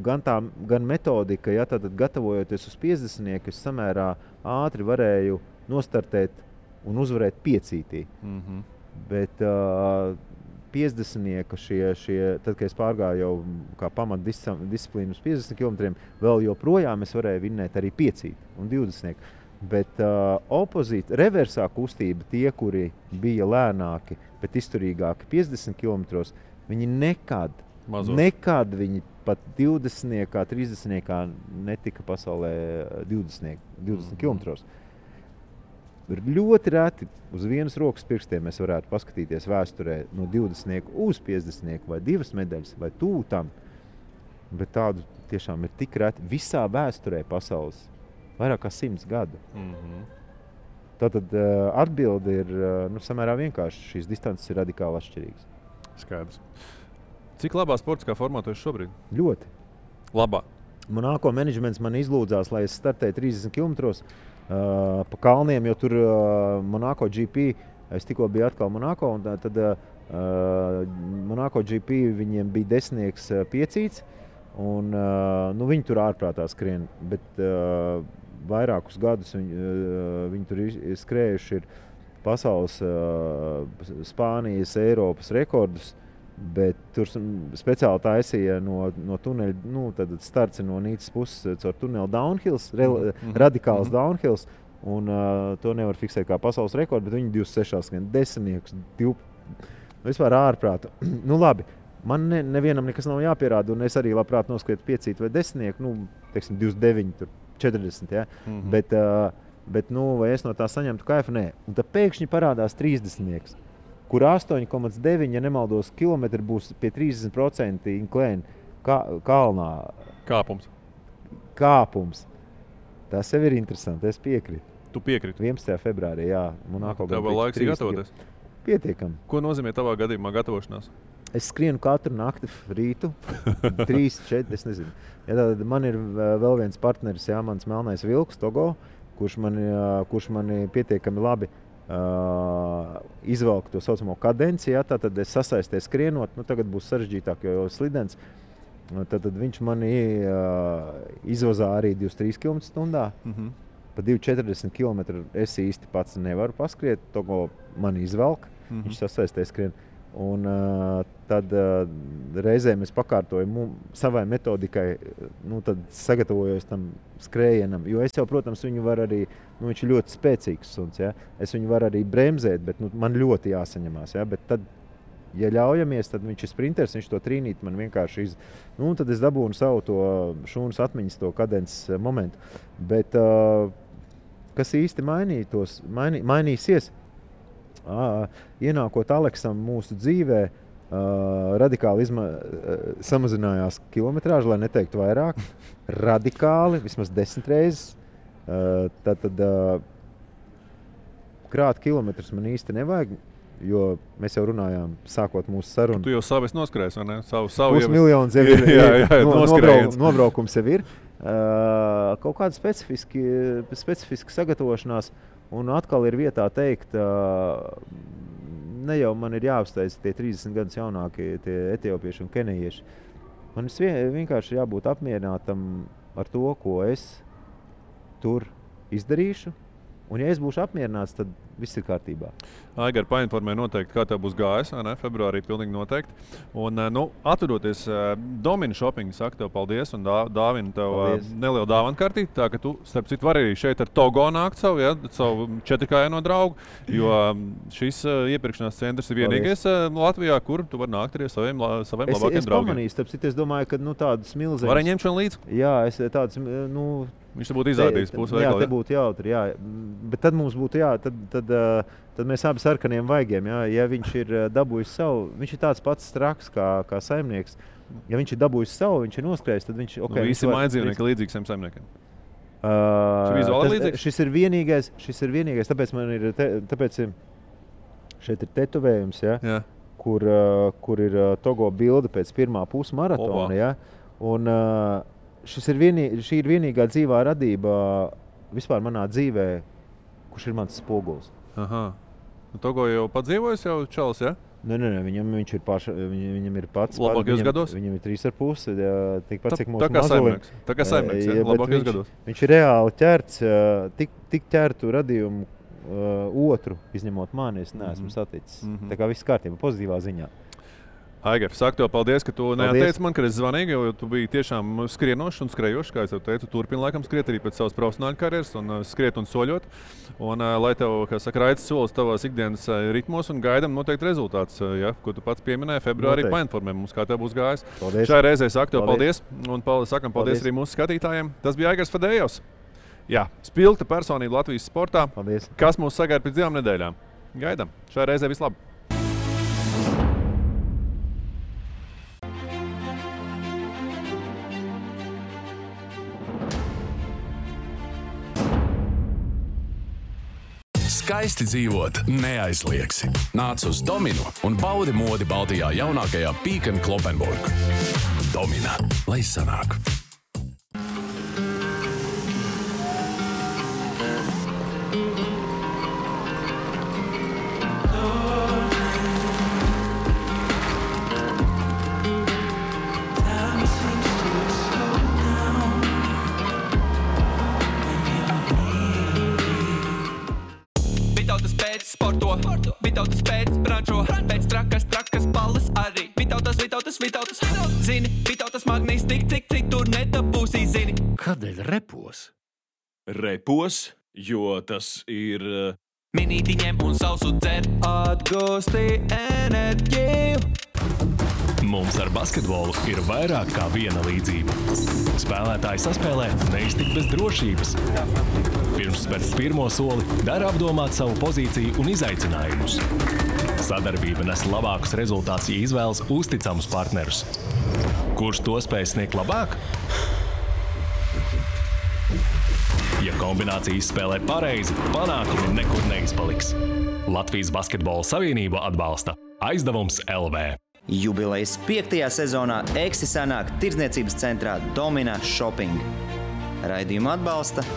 gan metodika, ja, tad gatavojoties uz 50, es samērā ātri varēju nostartēt un uzvarēt 5. Bet 50 tad, kad es pārgāju jau kā pamatdisciplīnu uz 50 km, vēl joprojām es varēju vinnēt arī 5 un 20. Bet reversā kustība, tie, kuri bija lēnāki, bet izturīgāki 50 km, viņi nekad viņi pat 20, 30 netika pasaulē 20 km. Ir ļoti reti uz vienas rokas pirkstiem mēs varētu paskatīties vēsturē no 20 uz 50 vai 2 medaļas vai tūtam. Bet tādu tiešām ir tik reti visā vēsturē pasaules. Vairāk kā 100 gadu. Tātad atbilde ir samērā vienkārši. Šīs distances ir radikāli atšķirīgas. Skaidrs. Cik labā sportiskā formā tu esi šobrīd? Ļoti. Labā. Monako menedžments man izlūdzās, lai es startēju 30 km pa kalniem, jo tur Monako GP, es tikko biju atkal Monako, un tad Monako GP viņiem bija 10 piecīts, Un, viņi tur ārprātā skrien, bet vairākus gadus viņi tur skrējuši ir pasaules, Spānijas, Eiropas rekordus, bet tur speciāli taisīja no tuneļa, tad starts no Nīcas puses caur tuneli downhills, radikāls downhills, un to nevar fiksēt kā pasaules rekordu, bet viņi 26 skrien, 10, 12, vispār ārprāta. Labi. Man nevienam nekas nav jāpierāda, un es arī labprāt noskrietu 5 vai 10, teiksim 29, 40, ja? Bet vai es no tā saņemtu kaifu? Nē. Un tad pēkšņi parādās 30, kur 8,9, ja nemaldos, kilometri būs pie 30% inklēni kalnā. Kāpums. Tas jau ir interesanti, es piekrītu. Tu piekrīti? 11. februārī, jā. Tev vēl laiks gatavoties? Pietiekam. Ko nozīmē tavā gadījumā gatavošanās? Es skrienu katru nakti rītu, 3, 4, es nezinu. Ja tad man ir vēl viens partneris, jā, mans melnais vilks, Togo, kurš mani pietiekami labi izvelk to saucamo kadenci, jā, tad es sasaistēju skrienot, tagad būs sarežģītāk, jo slidens. Tad viņš mani izvazā arī 23 km/h. Pa 2,40 km es īsti pats nevaru paskriet, Togo mani izvelk, viņš sasaistēja skrienu. Un tad reizēm es pakārtoju savai metodikai, tad sagatavojos tam skrējienam, jo es jau, protams, viņu var arī, viņš ir ļoti spēcīgs suns, ja? Es viņu varu arī bremzēt, bet man ļoti jāsaņemās, ja? Bet tad, ja ļaujamies, tad viņš ir sprinters, viņš to trīnīt man vienkārši tad es dabūnu savu to šūnas atmiņas, to kadences momentu. Bet kas īsti mainīsies? Ienākot Aleksam mūsu dzīvē, radikāli samazinājās kilometrāža, lai neteiktu vairāk. Radikāli, vismaz 10 reizes. Tad krāt kilometrus man īsti nevajag, jo mēs jau runājām, sākot mūsu sarunu. Tu jau savu esi noskrējis, vai ne? Savu miljons jau ir, nobraukums jau ir. Kaut kāda specifiska sagatavošanās. Un atkal ir vietā teikt, ne jau man ir jāuzteic tie 30 gadus jaunākie tie etiopieši un kenejieši. Man vienkārši jābūt apmierinātam ar to, ko es tur izdarīšu. Un ja es būšu apmierināts, tad viss ir kārtībā. Aigar, painformē noteikti, kā tev būs gājis, vai ne? Februārī pilnīgi noteikti. Un, atvedoties Domina Shopping, saku tev paldies un dāvinu tev nelielu dāvanu kartīti. Tā, ka tu, starp citu, vari arī šeit ar Togo nākt savu 4K draugu, jo šis iepirkšanās centrs ir vienīgais Latvijā, kur tu vari nākt arī saviem labākiem draugiem. Es pamanīju, starp citu, es domāju, ka tādas milzīgas... Vari ņemt šodien līdzi? Jā, es tādas, viņš te būtu izrādījis pusveikali. Jā, te būtu jautri, jā. Bet tad mums būtu, tad mēs abi sarkaniem vaigiem, jā. Ja viņš ir dabūjis savu, viņš ir tāds pats straks kā saimnieks. Ja viņš ir dabūjis savu, viņš ir noskrējis, tad viņš... Visi mājdzīvnieki līdzīgi saviem saimniekiem. Šis ir vienīgais, tāpēc šeit ir tetovējums, jā. Kur ir Togo bilde pēc pirmā pusmaratona, jā. Un... šī ir vienīgā dzīvā radība vispār manā dzīvē, kurš ir mans spogulis. Aha. Togo jau padzīvojis jau čalis, ja? Nē, viņam ir pats. Labākajos gados? Viņam ir 3,5, tikpat cik mūsu mazulim. Tā kā saimnieks, ja? Labākajos gados. Viņš ir reāli ķerts, tik ķertu radījumu otru, izņemot mani, es neesmu saticis. Tā kā viss kārtībā, pozitīvā ziņā. Aigar, saku tev paldies, ka tu neatteici man, kad es zvanīju, jo tu biji tiešām skrienošs un skrejošs, kā es tev teicu, turpini laikam skriet arī pēc savas profesionāļu karjeras un skriet un soļot. Un lai tev, kā saka, raids solis tavās ikdienas ritmos un gaidam noteikti rezultāts, ja, ko tu pats pieminēji februārī, painformē mums, kā tev būs gājis. Paldies. Šai reizē saku tev paldies un sakam paldies arī mūsu skatītājiem. Tas bija Aigars Fadejovs. Jā, spilgta personība Latvijas sportā. Paldies. Kas mūs sagaida pēc 2 nedēļām? Gaidam. Šai reizē vislabāk. Skaisti dzīvot neaizliegsi. Nāc uz Dominu un baudi modi Baltijā jaunākajā Peek & Cloppenburg. Domina, lai sanāk! Time seems to Vitautas pēc brančo, pēc trakas balles arī. Vitautas, zini, Vitautas magnīs tik, cik tur nedabūsī, zini. Kādēļ repos? Repos, jo tas ir... Minīti ņem un sausu dzer, atgūsti enerģiju. Mums ar basketbolu ir vairāk kā viena līdzība. Spēlētāji saspēlē neiztikt bez drošības. Pirms spērt pirmo soli, dara apdomāt savu pozīciju un izaicinājumus. Sadarbība nes labākus rezultātus, ja izvēlas uzticamus partnerus. Kurš to spēj sniegt labāk? Ja kombinācija izspēlē pareizi, panākumi nekur neizpaliks. Latvijas Basketbola Savienība atbalsta Aizdevums LV. Jubilejas 5. sezonā Eksi sanāk tirdzniecības centrā Domina Shopping. Raidījumu atbalsta